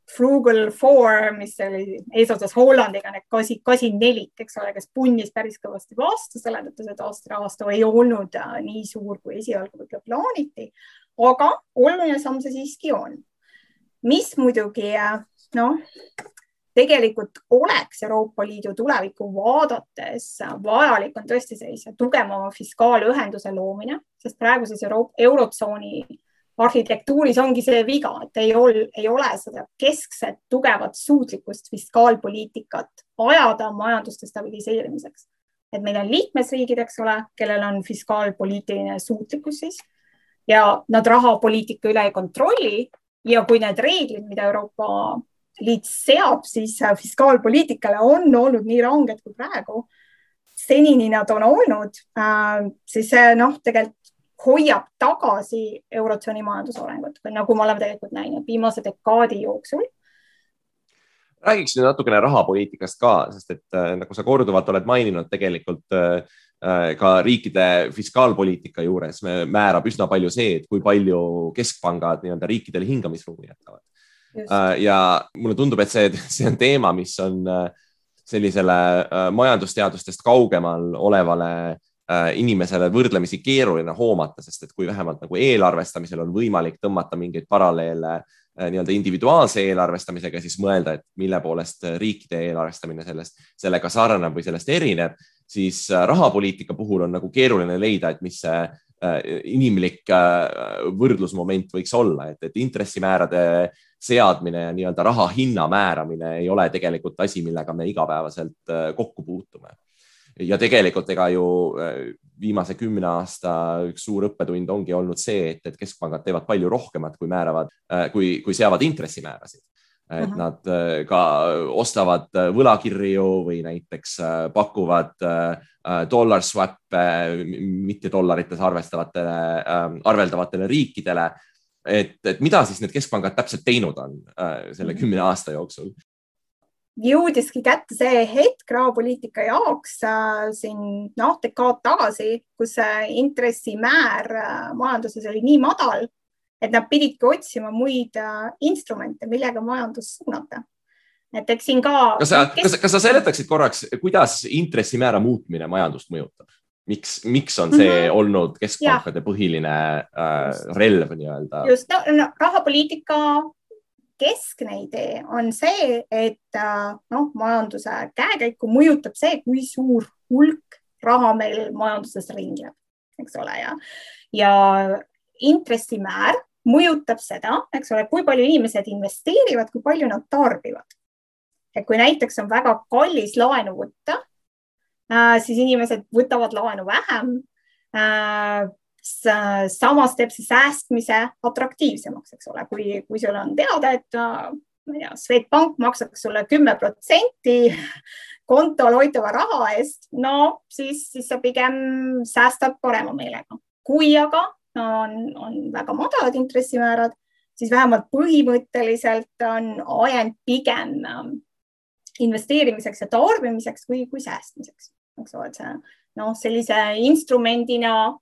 Frugal Four, mis oli eesotsas Hollandiga, need kasinnelik, eks ole, kes punnis päris kõvasti vastu, selle tõttu see taasterahastu ei olnud nii suur, kui esialgu plaaniti, aga oluline samm see siiski on. Mis muidugi, tegelikult oleks Euroopa Liidu tulevikku vaadates vajalik on tõesti sellise tugevama fiskaalühenduse loomine, sest praeguses eurotsooni arhitektuuris ongi see viga, et ei ole seda keskset tugevat suutlikkust fiskaalpoliitikat ajada majanduste stabiliseerimiseks. Et meil on liikmesriigid, eks ole, kellel on fiskaalpoliitiline suutlikkus siis ja nad rahapoliitika üle ei kontrolli ja kui need reeglid, mida Euroopa Liit seab, siis fiskaalpoliitikale on olnud nii ranged kui praegu, senini nad on olnud, siis see tegelikult hoiab tagasi eurotsooni majandusarengut, nagu me oleme tegelikult näinud viimase dekaadi jooksul. Räägiks nüüd natukene rahapoliitikast ka, sest et nagu sa korduvalt oled maininud, tegelikult ka riikide fiskaalpoliitika juures määrab üsna palju see, et kui palju keskpangad riikidele hingamisruumi jätavad. Ja mulle tundub, et see on teema, mis on sellisele majandusteadustest kaugemal olevale inimesele võrdlemisi keeruline hoomata, sest et kui vähemalt nagu eelarvestamisel on võimalik tõmmata mingeid paralleele individuaalse eelarvestamisega, siis mõelda, et mille poolest riikide eelarvestamine sellega sarnaneb või sellest erineb, siis rahapoliitika puhul on nagu keeruline leida, et mis see inimlik võrdlusmoment võiks olla, et intressimäärade seadmine ja raha hinna määramine ei ole tegelikult asi, millega me igapäevaselt kokku puutume. Ja tegelikult ega ju viimase 10 aasta üks suur õppetund ongi olnud see, et keskpangad teevad palju rohkemat, kui seavad intressimäärasid. Et nad ka ostavad võlakirju või näiteks pakuvad dollar swap'e mitte dollarites arveldavatele riikidele. Et mida siis need keskpangad täpselt teinud on selle 10 aasta jooksul? Jõudiski kätte see hetk rahapoliitika jaoks siin dekaad tagasi, kus intressimäär majanduses oli nii madal et nad pididki otsima muid instrumente, millega majandust suunata. Et eks siin ka... Kas sa seletaksid korraks, kuidas intressimäära muutmine majandust mõjutab? Miks on see olnud keskpankade põhiline relv nii-öelda? Just, rahapoliitika keskne idee on see, et majanduse käekäiku mõjutab see, kui suur hulk raha meil majanduses ringleb, eks ole, ja intressimäär mõjutab seda, eks ole, kui palju inimesed investeerivad, kui palju nad tarbivad. Et kui näiteks on väga kallis laenu võtta, siis inimesed võtavad laenu vähem, samas teeb see säästmise atraktiivsemaks, eks ole, kui sul on teada, et Swedbank maksaks sulle 10% kontol hoitava raha eest, siis sa pigem säästad parema meelega. Kui aga on väga madalad intressimäärad, siis vähemalt põhimõtteliselt on ajend pigem investeerimiseks ja tarbimiseks kui säästmiseks. Eks ole, et sellise instrumendina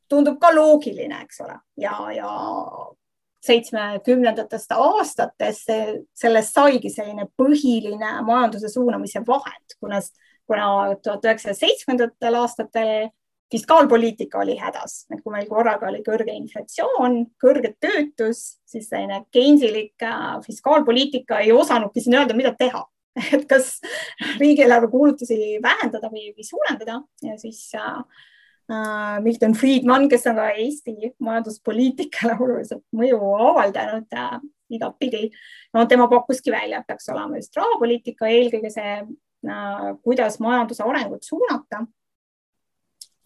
tundub ka loogiline, eks ole, ja 70-ndatest aastatest sellest saigi selline põhiline majanduse suunamise vahend, kuna 1970-ndatel aastatel fiskaalpoliitika oli hädas, et kui meil korraga oli kõrge inflatsioon, kõrge töötus, siis selline Keynesilik fiskaalpoliitika ei osanudki siin öelda, mida teha. Et kas riigieelarve kulutusi vähendada või suurendada ja siis Milton Friedman, kes on ka Eesti majanduspoliitikale oluliselt mõju avaldanud igatpidi, tema pakkuski välja, et peaks olema just rahapoliitika, eelkõige see, kuidas majanduse arengut suunata.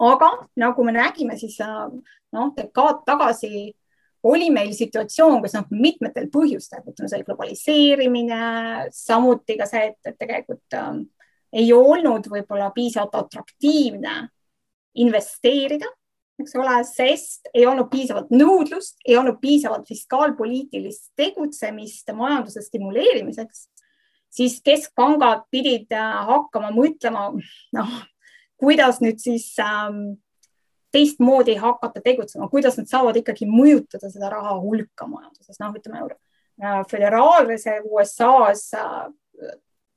Aga nagu me nägime, siis dekaad tagasi oli meil situatsioon, kus mitmetel põhjustel, see globaliseerimine, samuti ka see, et tegelikult ei olnud võib-olla piisavalt atraktiivne investeerida, eks ole, sest ei olnud piisavalt nõudlust, ei olnud piisavalt fiskaalpoliitilist tegutsemist majanduse stimuleerimiseks, siis keskpangad pidid hakkama mõtlema, kuidas nüüd siis teistmoodi hakata tegutsema, kuidas nad saavad ikkagi mõjutada seda raha hulka majanduses. Föderaalreserv USA-s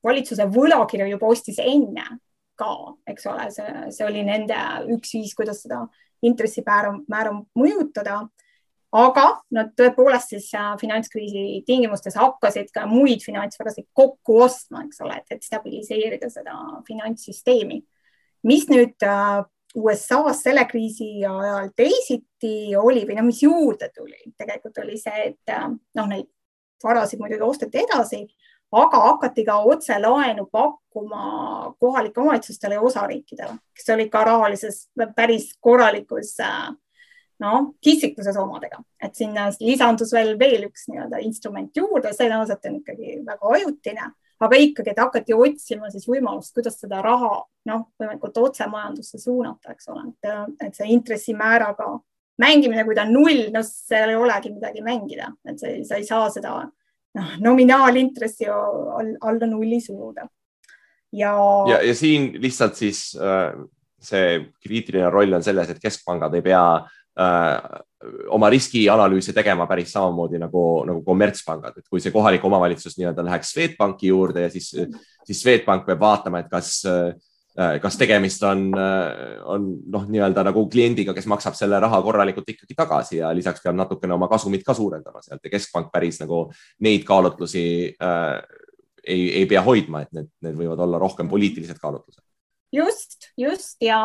valitsuse võlakirju juba ostis enne ka, eks ole, see oli nende üks viis, kuidas seda intressimäära mõjutada. Aga nad tõepoolest siis finantskriisi tingimustes hakkasid ka muid finantsvarasid kokku ostma, eks ole, et stabiliseerida seda finantssüsteemi. Mis nüüd USA-s selle kriisi ajal teisiti oli või mis juurde tuli, tegelikult oli see, et neid varasid muidugi osteti edasi, aga hakati ka otse laenu pakkuma kohalike omavalitsustele ja osariikidele, kes oli ka rahalises päris korralikus kissikuses omadega. Et sinna lisandus veel üks instrument juurde, see tõenäoliselt on ikkagi väga ajutine, aga ikkagi, et hakati otsima siis võimalust, kuidas seda raha võimalikult otse majandusse suunata, eks ole, et see intressimääraga mängimine, kui ta on 0, seal ei olegi midagi mängida, et sa ei saa seda nominaalintressi alla 0 suruda. Ja siin lihtsalt siis see kriitiline roll on selles, et keskpangad ei pea oma riskianalüüse tegema päris samamoodi nagu kommertspangad, et kui see kohalik omavalitsus läheks Swedbanki juurde ja siis Swedbank peab vaatama, et kas tegemist on nagu kliendiga, kes maksab selle raha korralikult ikkagi tagasi ja lisaks peab natukene oma kasumit ka suurendama sealt ja keskpank päris neid kaalutlusi ei pea hoidma, et need võivad olla rohkem poliitilised kaalutlused. Just ja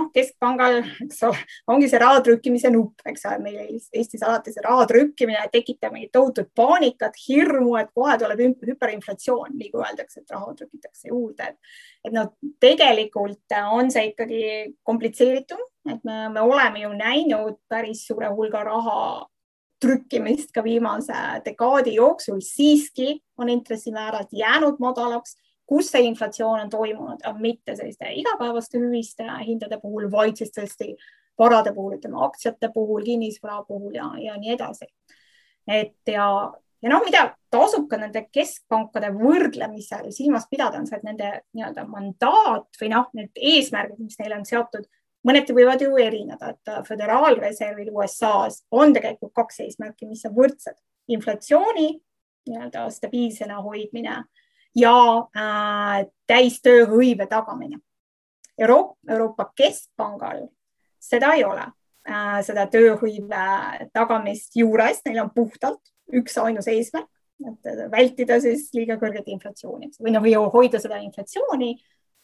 keskpangal, eks ole, ongi see raha trükkimise nupp, eks ole, meil Eestis alati see raha trükkimine tekitab mingit tohutut paanikat, hirmu, et kohe tuleb hüperinflatsioon, nii kui öeldakse, et raha trükitakse juurde. Et tegelikult on see ikkagi komplitseeritum, et me oleme ju näinud päris suure hulga raha trükkimist ka viimase dekaadi jooksul, siiski on intressimäärad jäänud madalaks, kus see inflatsioon on toimunud, mitte selliste igapäevaste hüviste hindade puhul, vaid siis tõesti varade puhul, aktsiate puhul, kinnisvara puhul ja nii edasi. Ja mida tasub ka nende keskpankade võrdlemisel silmas pidada on see, et nende mandaat või need eesmärgid, mis neile on seotud, mõneti võivad ju erineda, et föderaalreservil USA-s on tegelikult 2 eesmärki, mis on võrdsed. Inflatsiooni nii-öelda stabiilsena hoidmine ja täistööhõive tagamine. Euroopa Keskpangal seda ei ole. Seda tööhõive tagamist juures, neil on puhtalt üks ainus eesmärk, et vältida siis liiga kõrget inflatsiooni või hoida seda inflatsiooni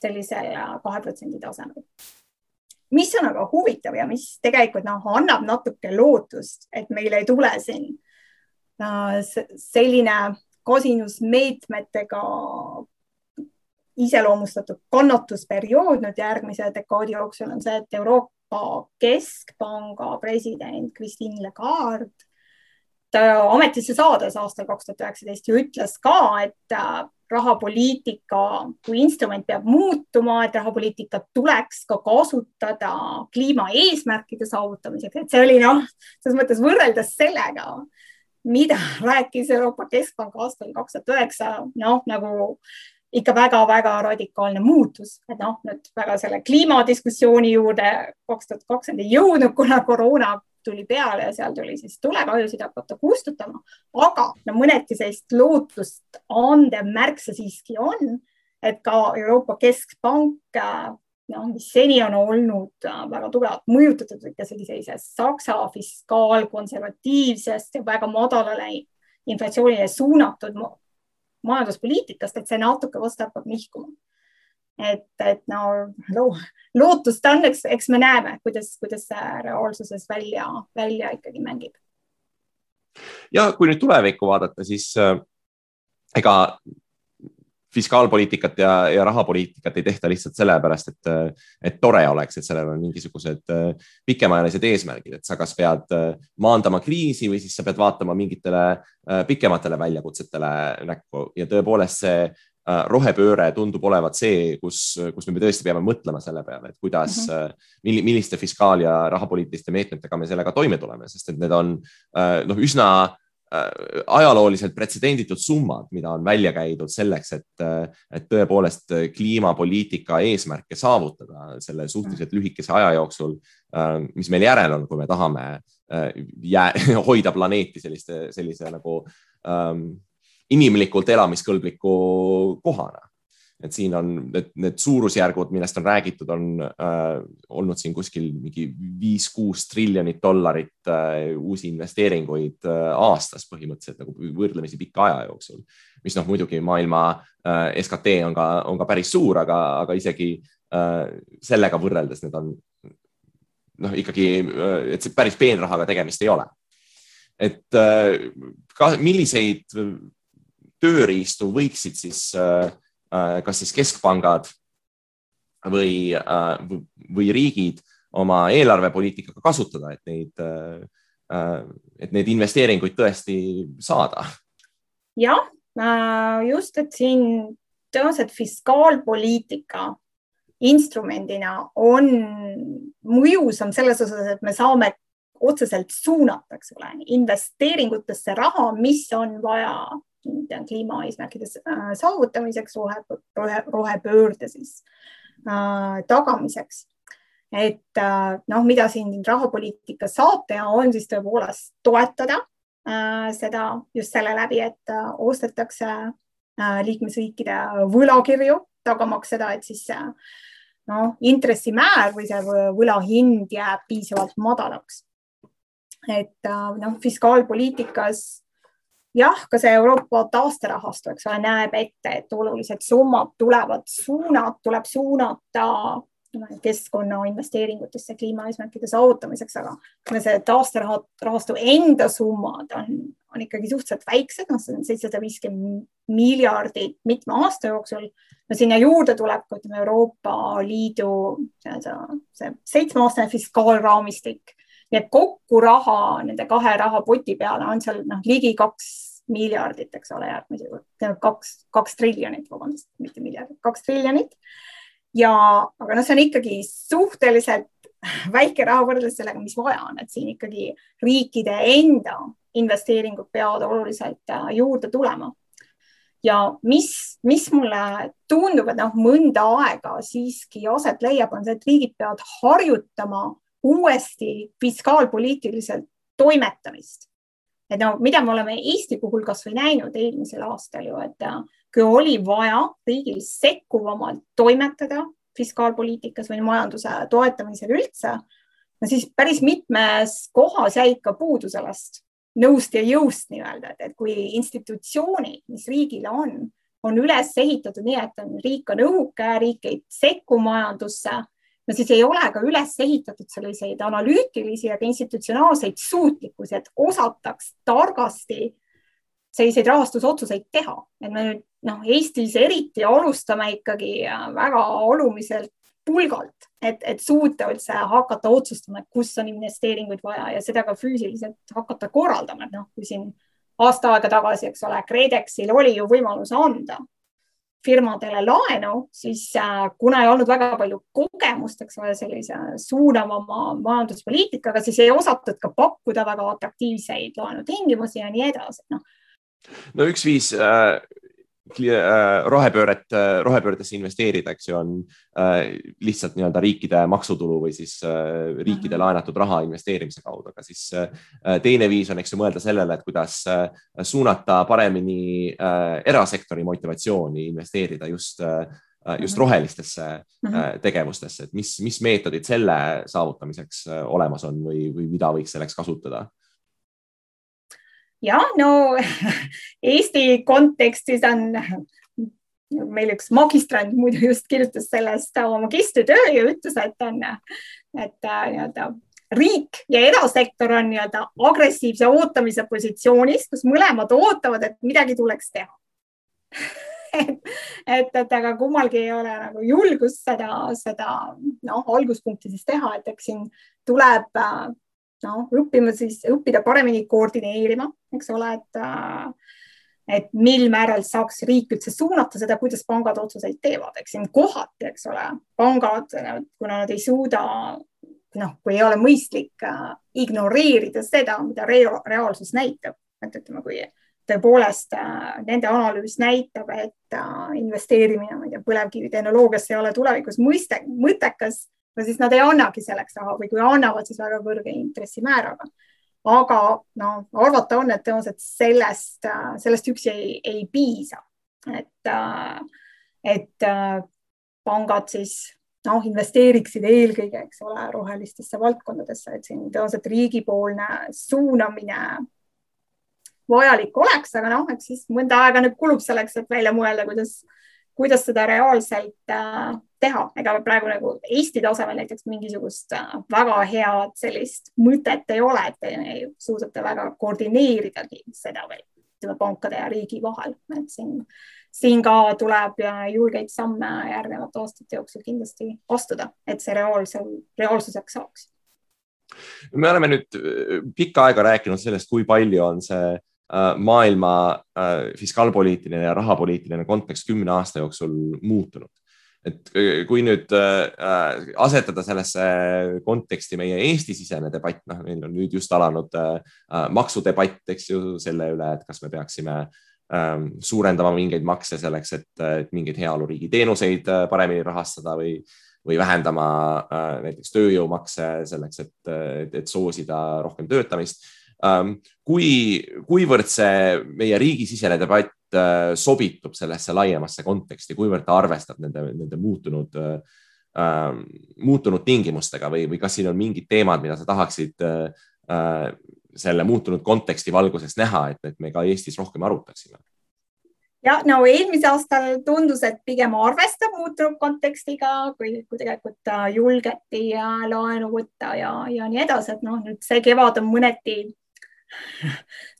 sellisel 2% tasemel. Mis on aga huvitav ja mis tegelikult annab natuke lootust, et meil ei tule siin selline kasinusmeetmetega iseloomustatud kannatusperiood nüüd järgmise dekaadi jooksul on see, et Euroopa Keskpanga president Christine Lagarde ametisse saades aastal 2019 ju ütles ka, et rahapoliitika kui instrument peab muutuma, et rahapoliitikat tuleks ka kasutada kliimaeesmärkide saavutamiseks. Et see oli selles mõttes võrreldes sellega, mida rääkis Euroopa Keskpank aastal 2009, nagu ikka väga-väga radikaalne muutus, et nüüd väga selle kliimadiskussiooni juurde 2020 jõudnud, kuna koroona tuli peale ja seal tuli siis tulekahjusid hakata kustutama, aga mõneti sellist lootust andev märksa siiski on, et ka Euroopa Keskpank, mis seni on olnud väga tugevalt mõjutatud ikka sellisest Saksa fiskaalkonservatiivsest ja väga madalale inflatsioonile suunatud majanduspoliitikast, et see natuke vast hakkab nihkuma. Et lootust on, eks me näeme, kuidas see reaalsuses välja ikkagi mängib. Ja kui nüüd tulevikku vaadata, siis ega fiskaalpoliitikat ja rahapoliitikat ei tehta lihtsalt sellepärast, et tore oleks, et sellel on mingisugused pikemaajalised eesmärgid, et sa kas pead maandama kriisi või siis sa pead vaatama mingitele pikematele väljakutsetele näkku ja tõepoolest see rohepööre tundub olevat see, kus me tõesti peame mõtlema selle peale, et kuidas, milliste fiskaal- ja rahapoliitiliste meetmetega me sellega toime tuleme, sest et need on üsna ajalooliselt pretsedenditud summad, mida on välja käidud selleks, et tõepoolest kliimapoliitika eesmärke saavutada selle suhteliselt lühikese aja jooksul, mis meil järel on, kui me tahame hoida planeeti sellise nagu inimlikult elamiskõlbliku kohana. Et siin on need suurusjärgud, millest on räägitud, on olnud siin kuskil mingi 5-6 triljonit dollarit uusi investeeringuid aastas põhimõtteliselt nagu võrdlemisi pikka aja jooksul, mis muidugi maailma SKT on ka päris suur, aga isegi sellega võrreldes need on ikkagi, et see päris peenrahaga tegemist ei ole. Et milliseid tööriistu võiksid siis kas siis keskpangad või riigid oma eelarvepoliitikaga kasutada, et neid investeeringuid tõesti saada? Jah, just, et siin tõenäoliselt fiskaalpoliitika instrumendina on mõjusam selles osas, et me saame otseselt suunata investeeringutesse raha, mis on vaja kliimaeesmärkide saavutamiseks, rohepöörde siis tagamiseks. Et mida siin rahapoliitika saab teha, on siis tõepoolest toetada seda just selle läbi, et ostetakse liikmesriikide võlakirju, tagamaks seda, et siis intressimäär või see võlahind jääb piisavalt madalaks. Et fiskaalpoliitikas jah, ka see Euroopa taasterahastu, näeb ette, et olulised summad tuleb suunata keskkonna investeeringutesse kliimaeesmärkide saavutamiseks, aga see taasterahastu enda summad on ikkagi suhteliselt väiksed, see on 750 miljardit mitme aasta jooksul. Sinna juurde tuleb Euroopa Liidu see 7-aastane fiskaalraamistik. Ja kokku raha, nende 2 rahapoti peale on seal ligi 2 miljardit, järgmise 2 triljonit, vabandust, mitte miljardit, 2 triljonit. Aga see on ikkagi suhteliselt väike raha võrreldes sellega, mis vaja on, et siin ikkagi riikide enda investeeringud peavad oluliselt juurde tulema. Ja mis mis mulle tundub, et mõnda aega siiski aset leiab, on see, et riigid peavad harjutama uuesti fiskaalpoliitiliselt toimetamist. Et mida me oleme Eesti puhul kas või näinud eelmisel aastal ju, et kui oli vaja riigil sekkuvamalt toimetada fiskaalpoliitikas või majanduse toetamisel üldse, no siis päris mitmes kohas jäid ka puudu sellest nõust ja jõust nii-öelda, et kui institutsioonid, mis riigile on üles ehitatud nii, et riik on õhuke, riik ei sekku majandusse, no siis ei ole ka üles ehitatud selliseid analüütilisi ja institutsionaalseid suutlikkusi, et osataks targasti selliseid rahastusotsuseid teha. Et me nüüd Eestis eriti alustame ikkagi väga oluliselt pulgalt, et suuta üldse hakata otsustama, kus on investeeringuid vaja ja seda ka füüsiliselt hakata korraldama. Kui siin aasta aega tagasi, eks ole, KredExil oli ju võimalus anda firmadele laenu, siis kuna ei olnud väga palju kogemust, eks ole, sellise suunavama majanduspoliitikaga, siis ei osatud ka pakkuda väga atraktiivseid laenutingimusi ja nii edasi. No üks viis rohepöördesse investeerida, eks ju, on lihtsalt nii-öelda riikide maksutulu või siis riikide laenatud raha investeerimise kaudu, aga siis teine viis on, eks ju, mõelda sellele, et kuidas suunata paremini erasektori motivatsiooni investeerida just rohelistesse tegevustesse, et mis meetodid selle saavutamiseks olemas on või mida võiks selleks kasutada? Ja, Eesti kontekstis on meil üks magistrant muidu just kirjutas sellest oma magistritöö ja ütles, et riik ja erasektor on agressiivse ootamise positsioonis, kus mõlemad ootavad, et midagi tuleks teha. Aga kummalgi ei ole julgust seda alguspunkti siis teha, et eks siin tuleb õppida paremini koordineerima, eks ole, et mil määral saaks riik üldse suunata seda, kuidas pangad otsuseid teevad, eks siin kohati, eks ole, pangad, kuna nad ei suuda, kui ei ole mõistlik ignoreerida seda, mida reaalsus näitab, et ütleme, kui tõepoolest nende analüüs näitab, et investeerimine põlevkivitehnoloogiasse ei ole tulevikus mõttekas, no siis nad ei annagi selleks raha või kui annavad, siis väga kõrge intressimääraga. Aga arvata on, et tõenäoliselt sellest üksi ei piisa. Et pangad siis investeeriksid eelkõige, eks ole, rohelistesse valdkondadesse, et siin tõenäoliselt riigipoolne suunamine vajalik oleks, aga eks siis mõnda aega nüüd kulub selleks, et välja mõelda, kuidas seda reaalselt teha. Ega praegu Eesti tasemel näiteks mingisugust väga head sellist mõtet ei ole, et ei suudata väga koordineeridagi seda veel pankade ja riigi vahel. Et siin ka tuleb julgeid samme järgnevate aastate jooksul kindlasti astuda, et see reaalsuseks saaks. Me oleme nüüd pikka aega rääkinud sellest, kui palju on see maailma fiskaalpoliitiline ja rahapoliitiline kontekst 10 aasta jooksul muutunud. Et kui nüüd asetada sellesse konteksti meie Eesti-sisene debatt, meil on nüüd just alanud maksudebatt, eks ju, selle üle, et kas me peaksime suurendama mingeid makse selleks, et mingeid heaoluriigi teenuseid paremini rahastada või vähendama näiteks tööjõumakse selleks, et soosida rohkem töötamist. Kuivõrd see meie riigisisene debatt sobitub sellesse laiemasse konteksti, kuivõrd ta arvestab nende muutunud tingimustega või kas siin on mingid teemad, mida sa tahaksid selle muutunud konteksti valguses näha, et me ka Eestis rohkem arutaksime? Ja, eelmise aastal tundus, et pigem arvestab muutunud kontekstiga, kui tegelikult julgeti laenu võtta ja nii edasi, et nüüd see kevad on mõneti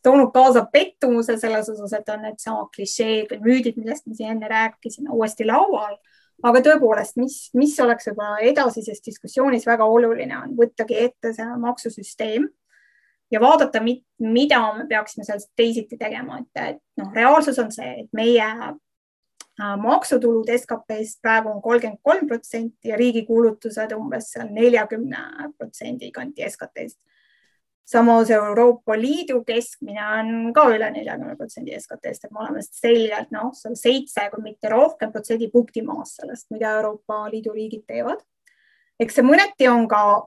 toonud kaasa pettumuse selles osas, et on need sama klišeed või müüdid, millest me siin enne rääkisime, uuesti laual. Aga tõepoolest, mis oleks juba edasises diskussioonis väga oluline on võttagi ette see maksusüsteem ja vaadata, mida me peaksime seal teisiti tegema. Et reaalsus on see, et meie maksutulud SKP-st praegu on 33% ja riigi kulutused umbes 40% kanti SKT-st. Samas Euroopa Liidu keskmine on ka üle 40% SKT-st, et me oleme selgelt 7, kui mitte rohkem protsendipunkti maas sellest, mida Euroopa Liidu riigid teevad. Eks see mõneti on ka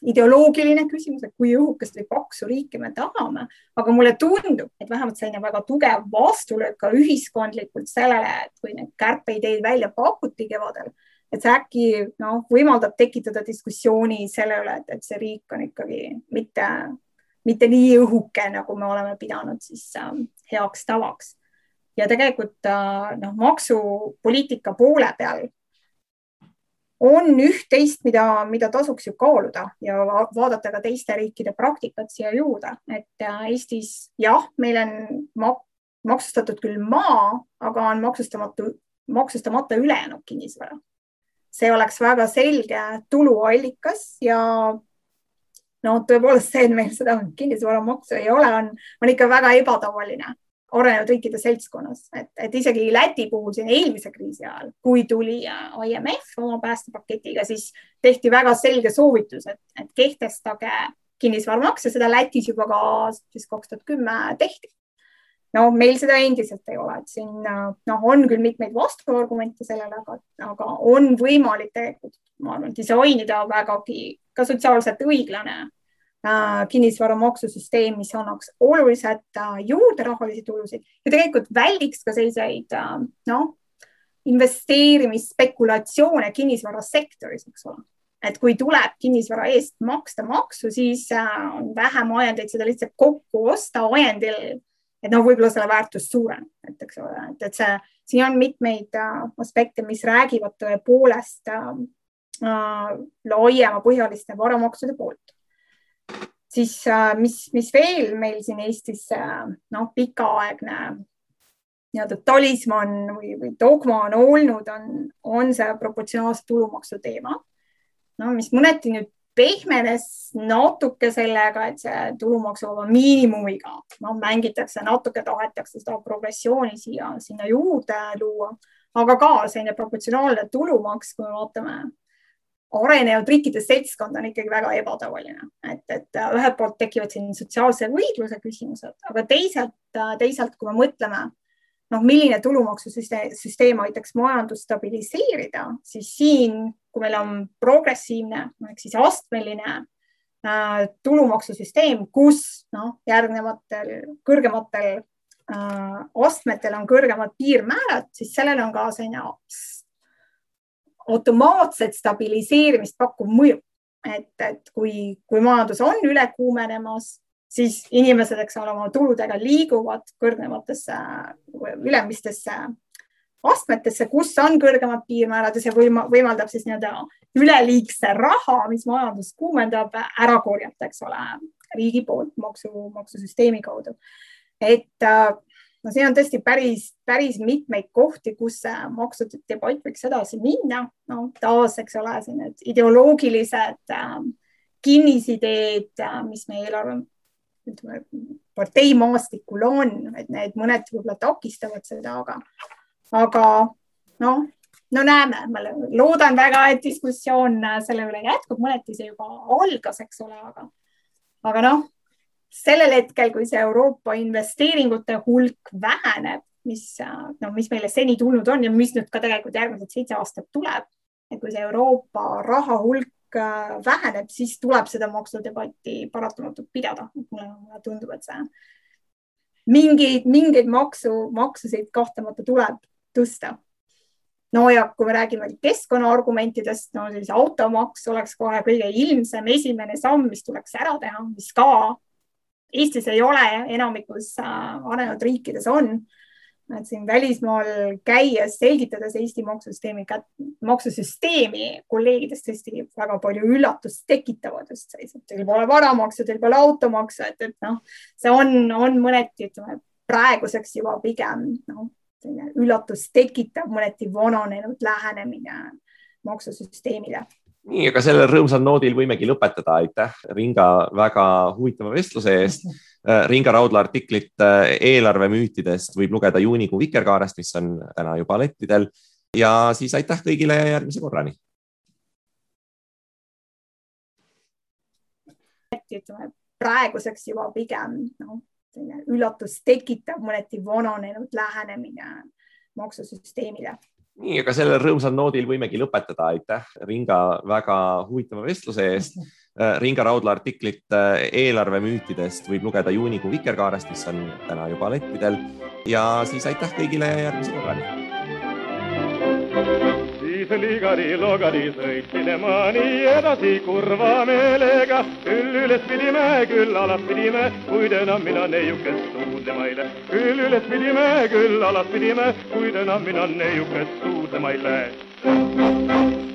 ideoloogiline küsimus, et kui õhukest või paksu riiki me tahame, aga mulle tundub, et vähemalt selline väga tugev vastulöök ka ühiskondlikult sellele, et kui need kärpeideid välja pakuti kevadel, et see äkki võimaldab tekitada diskussiooni selle üle, et see riik on ikkagi mitte nii õhuke, nagu me oleme pidanud siis heaks tavaks. Ja tegelikult maksupoliitika poole peal on üht-teist, mida tasuks ju kaaluda ja vaadata ka teiste riikide praktikat siia juurde. Et Eestis, meil on maksustatud küll maa, aga on maksustamata ülejäänud kinnisvara. See oleks väga selge tuluallikas ja tõepoolest see, et meil seda kinnisvaramaksu ei ole, on ikka väga ebatavaline arenenud riikide seltskonnas. Et isegi Läti puhul siin eelmise kriisi ajal, kui tuli IMF oma päästepaketiga, siis tehti väga selge soovitus, et kehtestage kinnisvaramaks ja seda Lätis juba ka 2010 tehti. Meil seda endiselt ei ole, et siin on küll mitmeid vastuargumente sellele, aga on võimalik tegelikult, ma arvan, disainida vägagi ka sotsiaalselt õiglane kinnisvaramaksusüsteem, mis annaks oluliselt juurde rahalisi tulusid ja tegelikult väldiks ka selliseid investeerimisspekulatsioone kinnisvarasektoris, eks ole. Et kui tuleb kinnisvara eest maksta maksu, siis on vähem ajendeid seda lihtsalt kokku osta ajendil, et võib-olla selle väärtus suurem, eks ole, et siin on mitmeid aspekte, mis räägivad tõepoolest laiema põhjaliste varamaksude poolt. Siis mis veel meil siin Eestis pikaaegne talisman või dogma on olnud, on see proportsionaalse tulumaksu teema, mis mõneti nüüd pehmenes natuke sellega, et see tulumaksuvaba miinimumiga mängitakse, natuke tahetakse seda progressiooni sinna juurde luua, aga ka selline proportsionaalne tulumaks, kui me vaatame arenenud riikide seltskond on ikkagi väga ebatavaline, et ühelt poolt tekivad siin sotsiaalse võitluse küsimused, aga teisalt, kui me mõtleme, milline tulumaksusüsteem aitaks majandust stabiliseerida, siis siin, kui meil on progressiivne, ehk siis astmeline tulumaksusüsteem, kus järgnevatel kõrgematel astmetel on kõrgemad piirmäärad, siis sellel on ka selline automaatset stabiliseerimist pakkuv mõju. Et kui majandus on üle kuumenemas, siis inimesed, eks ole, oma tuludega liiguvad kõrgematesse ülemistesse astmetesse, kus on kõrgemad piirmäärad ja see võimaldab siis üleliigse raha, mis majandus kuumendab, ära korjata, eks ole, riigi poolt maksusüsteemi kaudu. Et siin on tõesti päris mitmeid kohti, kus maksude debatt võiks edasi minna. Taas, eks ole, need ideoloogilised kinnisideed, mis meie eelarve parteimaastikul on, et need mõned võib-olla takistavad seda, aga näeme, ma loodan väga, et diskussioon selle üle jätkub, mõneti see juba algas, eks ole, aga sellel hetkel, kui see Euroopa investeeringute hulk väheneb, mis meile seni tulnud on ja mis nüüd ka tegelikult järgmised 7 aastat tuleb, et kui see Euroopa raha hulk väheneb, siis tuleb seda maksudebatti paratamatult pidada. Mulle tundub, et see mingeid maksusid kahtlemata tuleb tõsta. Ja kui me räägime keskkonnaargumentidest, siis automaks oleks kohe kõige ilmsem esimene samm, mis tuleks ära teha, mis ka Eestis ei ole, enamikus arenenud riikides on. Et siin välismaal käies selgitades Eesti maksusüsteemi kolleegidest tõesti väga palju üllatust tekitavad just sellised. Teil pole varamaksu, teil pole automaksu, et see on mõneti praeguseks juba pigem üllatust tekitav, mõneti vananenud lähenemine maksusüsteemile. Nii, aga sellel rõõmsal noodil võimegi lõpetada. Aitäh Ringa väga huvitava vestluse eest. Ringa Raudla artiklit eelarvemüütidest võib lugeda juunikuu Vikerkaarest, mis on täna juba lettidel. Ja siis aitäh kõigile järgmise korrani. ütleme, praeguseks juba pigem üllatus tekitav, mõneti vananenud lähenemine maksusüsteemile. Nii, aga sellel rõõmsal noodil võimegi lõpetada. Aitäh Ringa väga huvitava vestluse eest. Ringa Raudla artiklit eelarvemüütidest võib lugeda juunikuu Vikerkaarest, mis on täna juba lettidel. Ja siis aitäh kõigile järgmise korrani. Siis ligari-logari sõitsin ma nii edasi kurva meelega. Küll üles pidime, küll alas pidime, kuid enam mina neiukest suudlema ei lähe. Küll üles pidime, küll alas pidime, kuid enam mina neiukest suudlema ei lähe.